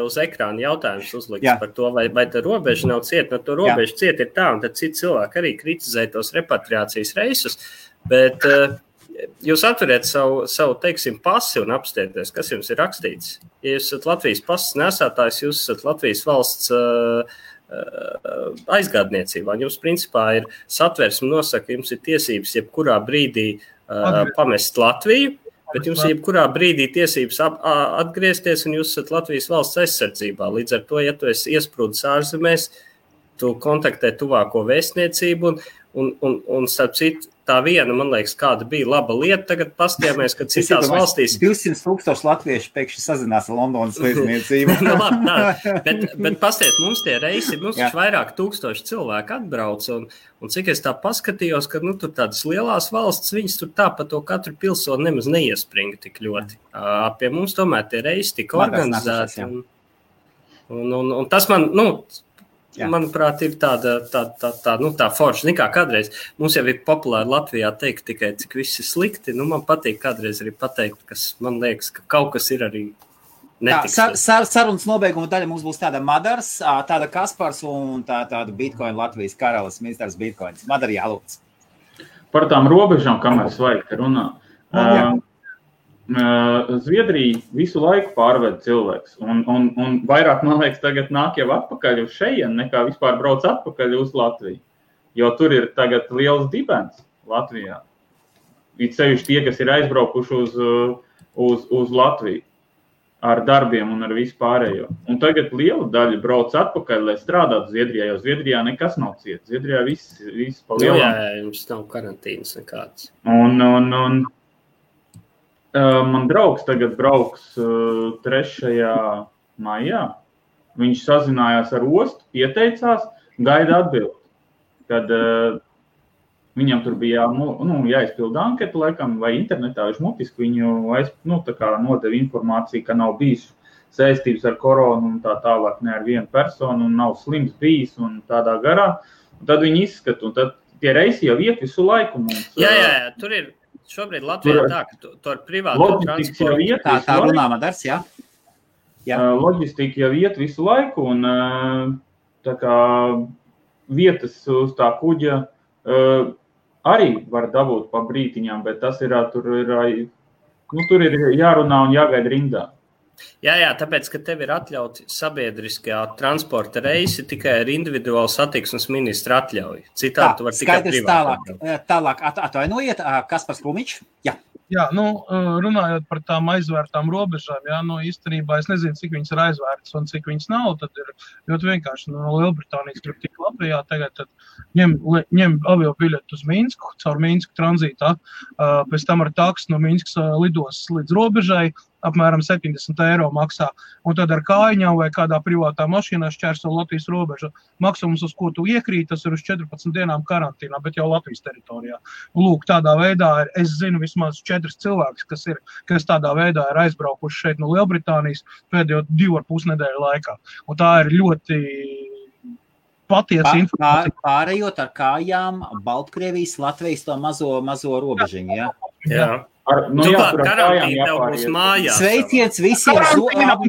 uz ekrāna jautājums uzlikts par to, vai tā robeža nav cieta. No to robeža cieta ir tā, un tad citi cilvēki arī kritizē tos repatriācijas reisus, bet jūs atveriet savu teiksim, pasi un apstieties, kas jums ir rakstīts. Ja jūs esat Latvijas pasas nesātājs, jūs esat Latvijas valsts aizgādniecībā. Jums principā ir satversme nosaka, jums ir tiesības jebkurā brīdī pamest Latviju, bet jums ir jebkurā brīdī tiesības atgriezties un jūs esat Latvijas valsts aizsardzībā. Līdz ar to, ja tu esi iesprūdis ārzemēs, tu kontaktē tuvāko vēstniecību un starp citu, tā viena, man liekas, kāda bija laba lieta. Tagad pastījāmies, ka citās valstīs... 200,000 latvieši pēkšņi sazinās ar Londonas vēstniecību. bet pastiet, mums tie reisi, mums vairāk tūkstoši cilvēku atbrauc, un cik es tā paskatījos, ka tur tādas lielās valsts, viņas tur tā pa to katru pilsoni nemaz neiespringa tik ļoti. Pie mums tomēr tie reisi tika organizēti. Un tas man, manuprāt, ir tā forša. Nekā kādreiz mums jau ir populāri Latvijā teikt tikai, cik viss ir slikti. Man patīk kādreiz arī pateikt, kas man liekas, ka kaut kas ir arī netiks. Sarunas nobeiguma daļa mums būs tāda Madars, tāda Kaspars un tāda Bitcoin Latvijas karalis, ministrs Bitcoins. Madar, jālūdz. Par tām robežām, kamēr svaigi runā. Zviedrija visu laiku pārved cilvēks, un vairāk, man liekas, tagad nāk jau atpakaļ uz šeien, nekā vispār brauc atpakaļ uz Latviju, jo tur ir tagad liels dibens Latvijā. It sevišķi tie, kas ir aizbraukuši uz Latviju ar darbiem un ar visu pārējo. Un tagad liela daļa brauc atpakaļ, lai strādātu Zviedrijā, jo Zviedrijā nekas nav ciet. Zviedrijā viss pa lielām. Jā, jums nav karantīnas nekāds. Man draugs tagad brauks 3. maijā. Viņš sazinājās ar ostu, pieteicās, gaida atbildi. Kad viņam tur bija jāizpilda anketu, laikam, vai internetā viņš mutiski viņu nodeva informāciju, ka nav bijis saistības ar koronu un tā tālāk ne ar vienu personu un nav slims bijis un tādā garā. Un tad viņi izskata, un tad tie reisi jau iet visu laiku mums. Jā, tur ir. Šobrīd Latvijā tā, ka tu ar privātu transportu... Tā runā Madars, jā. Loģistika jau iet visu laiku, un tā kā vietas uz tā kuģa arī var dabūt pa brītiņām, bet tas ir, tur ir jārunā un jāgaida rindā. Jā, tāpēc, ka tev ir atļauti sabiedriskajā transporta reisi tikai ar individuālu satiksmes ministra atļauju. Citādi tu var tikai privāti. Tālāk atvainojiet, Kaspars Klumičs. Jā, runājot par tām aizvērtām robežām, īstenībā es nezinu, cik viņas ir aizvērtas un cik viņas nav, tad ir ļoti vienkārši no Lielbritānijas grib tik Latvijā, tagad tad ņem avio biļetu uz Minsku, caur Minsku tranzītā, pēc tam ar taksu no Minskas lidos līdz robežai, apmēram 70 eiro maksā, un tad ar kājiņām vai kādā privātā mašīnā šķērso Latvijas robežu. Maksums, uz ko tu iekrīt, tas ir uz 14 dienām karantīnā, bet jau Latvijas teritorijā. Un lūk, tādā veidā es zinu vismaz 4 cilvēkus, kas tādā veidā ir aizbraukuši šeit no Lielbritānijas pēdējo 2,5 nedēļu laikā. Un tā ir ļoti patiesa informācija. Pārējot ar kājām Baltkrievijas, Latvijas to mazo robežiņu, jā? Jā. Karantīna tev būs mājās. Sveiciens visiem.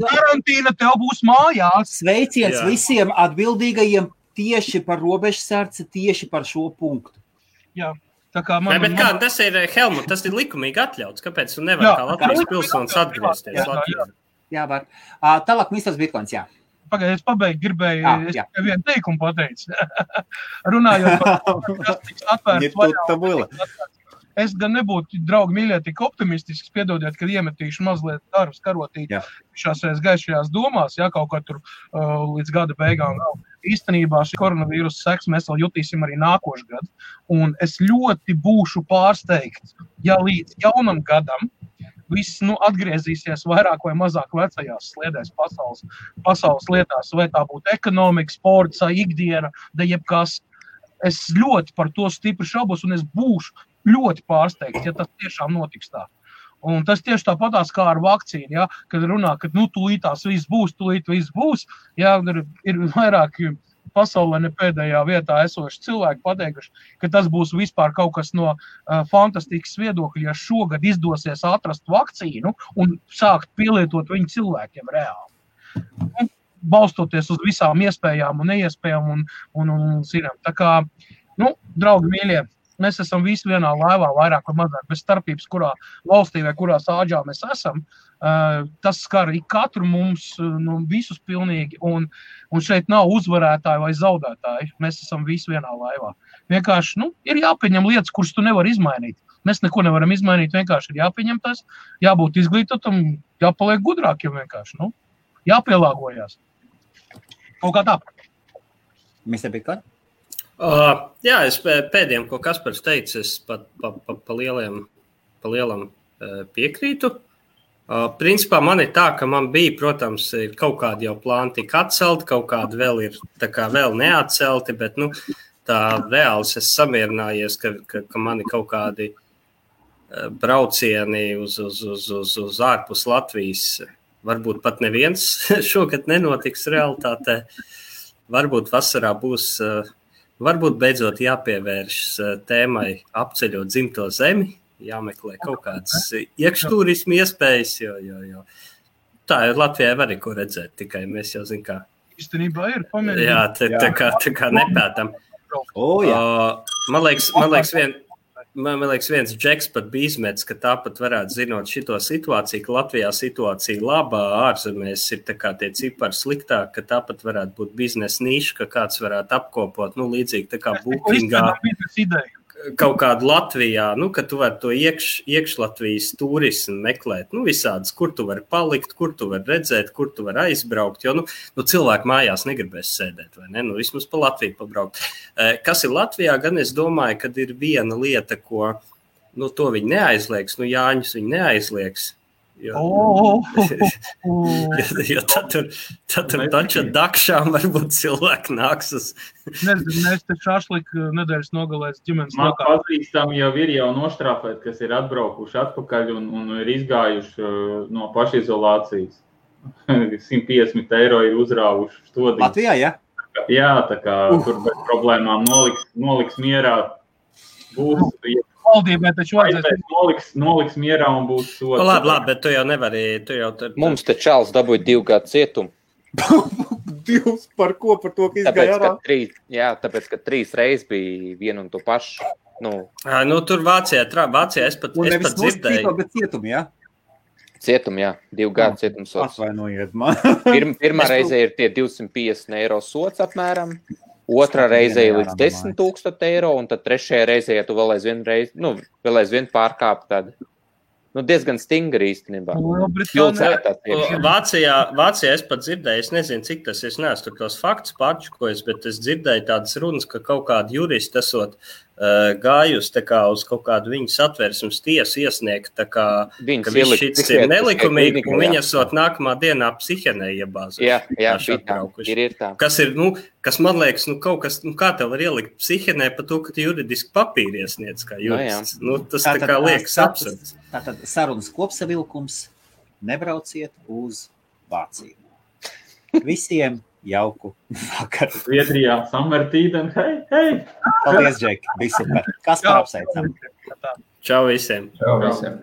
Karantīna tev būs mājās. Sveiciens visiem atbildīgajiem tieši par robežsardzi, tieši par šo punktu. Jā. Tas ir, Helmut, tas ir likumīgi atļauts. Kāpēc tu nevar kā Latvijas pilsonis atgriezties Latvijā? Jā, var. Tālāk ministrs Bitcoins, jā. Pagaid, es gribēju, es tikai vienu teikumu pateicu. Runājot par kas tiks atvērts vaļā. es gan nebūtu, draugi mīļie, tik optimistisks, piedodiet, kad iemetīšu mazliet darbs karotīt šās reiz gaišajās domās, kaut kā tur līdz gada beigām vēl. Īstenībā šī koronavīrusa seks mēs vēl jutīsim arī nākošu gadu, un es ļoti būšu pārsteigts, ja līdz jaunam gadam viss atgriezīsies vairāk vai mazāk vecajās sliedēs pasaules lietās, vai tā būtu ekonomika, sports, ikdiena, da jebkas. Es ļoti par to stipri šaubos, un es būšu ļoti pārsteigts, ja tas tiešām notiks tā. Un tas tieši tāpatās kā ar vakcīnu, ja, kad runā, ka tūlītās viss būs, ja, ir vairāk pasaulē ne pēdējā vietā esoši cilvēki pateikuši, ka tas būs vispār kaut kas no fantastikas viedokļa, ja šogad izdosies atrast vakcīnu un sākt pielietot viņu cilvēkiem reāli. Un balstoties uz visām iespējām un neiespējām un zinām. Tā kā, draugi mīļie, mēs esam visi vienā laivā, vairāk vai mazāk, bez starpības, kurā valstī vai kurā sāģā mēs esam. Tas skar katru mums, visus pilnīgi, un šeit nav uzvarētāji vai zaudētāji. Mēs esam visi vienā laivā. Vienkārši, ir jāpieņem lietas, kuras tu nevar izmainīt. Mēs neko nevaram izmainīt, vienkārši ir jāpieņem tas, jābūt izglītotam, jāpaliek gudrākiem vienkārši, jāpielāgojās. Kaut kā tā. Mr. Bitcoin? Jā, es pēdējiem, ko Kaspars teica, es pa lielam piekrītu. Principā man ir tā, ka man bija, protams, ir kaut kādi jau plāni tik atcelti, kaut kādi vēl ir tā kā vēl neatcelti, bet, tā reāls es samierinājies, ka mani kaut kādi braucieni uz ārpus Latvijas, varbūt pat neviens šogad nenotiks realitātē. Varbūt vasarā būs, varbūt beidzot jāpievēršas tēmai apceļot dzimto zemi, jāmeklē kaut kādas iekšturismu iespējas, jo tā ir Latvijai var ko redzēt, tikai mēs jau zinām, kā. Īstenībā ir pamēģināt. Jā, tā kā nepētam. Man liekas, viens džeks pat bija izmets, ka tāpat varētu zinot šito situāciju, ka Latvijā situācija labā, ārzemēs ir tā kā tie cipari sliktāk, ka tāpat varētu būt biznesa niša, ka kāds varētu apkopot, līdzīgi tā kā Bookingā. Kaut kādu Latvijā, ka tu vari to iekšlatvijas turismu meklēt, visādas, kur tu vari palikt, kur tu vari redzēt, kur tu vari aizbraukt, jo, cilvēki mājās negribēs sēdēt, vai ne? Vismaz pa Latviju pabraukt. Kas ir Latvijā, gan es domāju, kad ir viena lieta, ko, to viņi neaizliegs, Jāņus viņi neaizliegs, jo tad tur taču dakšām varbūt cilvēki nāks uz. Nezinu, mēs te šašliku nedēļas nogalēs ģimenes lokā. Man pazīstami jau ir noštrāpēti, kas ir atbraukuši atpakaļ un ir izgājuši no pašizolācijas. 150 € ir uzrāvuši stodī. Latvijā, ja? Jā, tā kā tur bez problēmām noliks mierā. Būs, valdībai taču vajadzēs. Noliks mierā un būs sots. Labi, bet tu jau nevari. Mums te Čāls dabūja 2 gadu cietumu. 2 par ko? Par to, ka izgāja ārā? Tāpēc, ka 3 reizes bija vienu un to pašu. Tur Vācijā es pat dzirdēju. Bet cietumi, jā? Cietumi, jā. 2 gadu cietumsots. Atvainojiet man. Pirmā reize ir tie 250 € sots apmēram. Otrā reize ir līdz 10 000 €, un tad trešajā reizē, ja tu vēl aizvien pārkāp, tad diezgan stingri īstenībā. Vācijā es pat dzirdēju, es nezinu, cik tas es neesmu tur tos faktus pārčukojis, bet es dzirdēju tādas runas, ka kaut kādi juristi esot gājusi tā kā uz kaut kādu viņu satversmes tiesu iesniegt, tā kā ka viss šits ir nelikumīgi, un viņi esot nākamā dienā psihienē iebāzuši. Jā, ir tā. Kas ir, kas man liekas, kaut kas, kā tev var ielikt psihienē par to, ka tu juridiski papīri iesniedz kā jurists. Tas tā kā liekas absurds. Tātad sarunas kopsavilkums, nebrauciet uz Vāciju. Visiem jauku vakaru. Zviedrijā, Samertīden, hei! Paldies, Džek, bija super. Kas par apsveicam? Čau visiem! Čau visiem!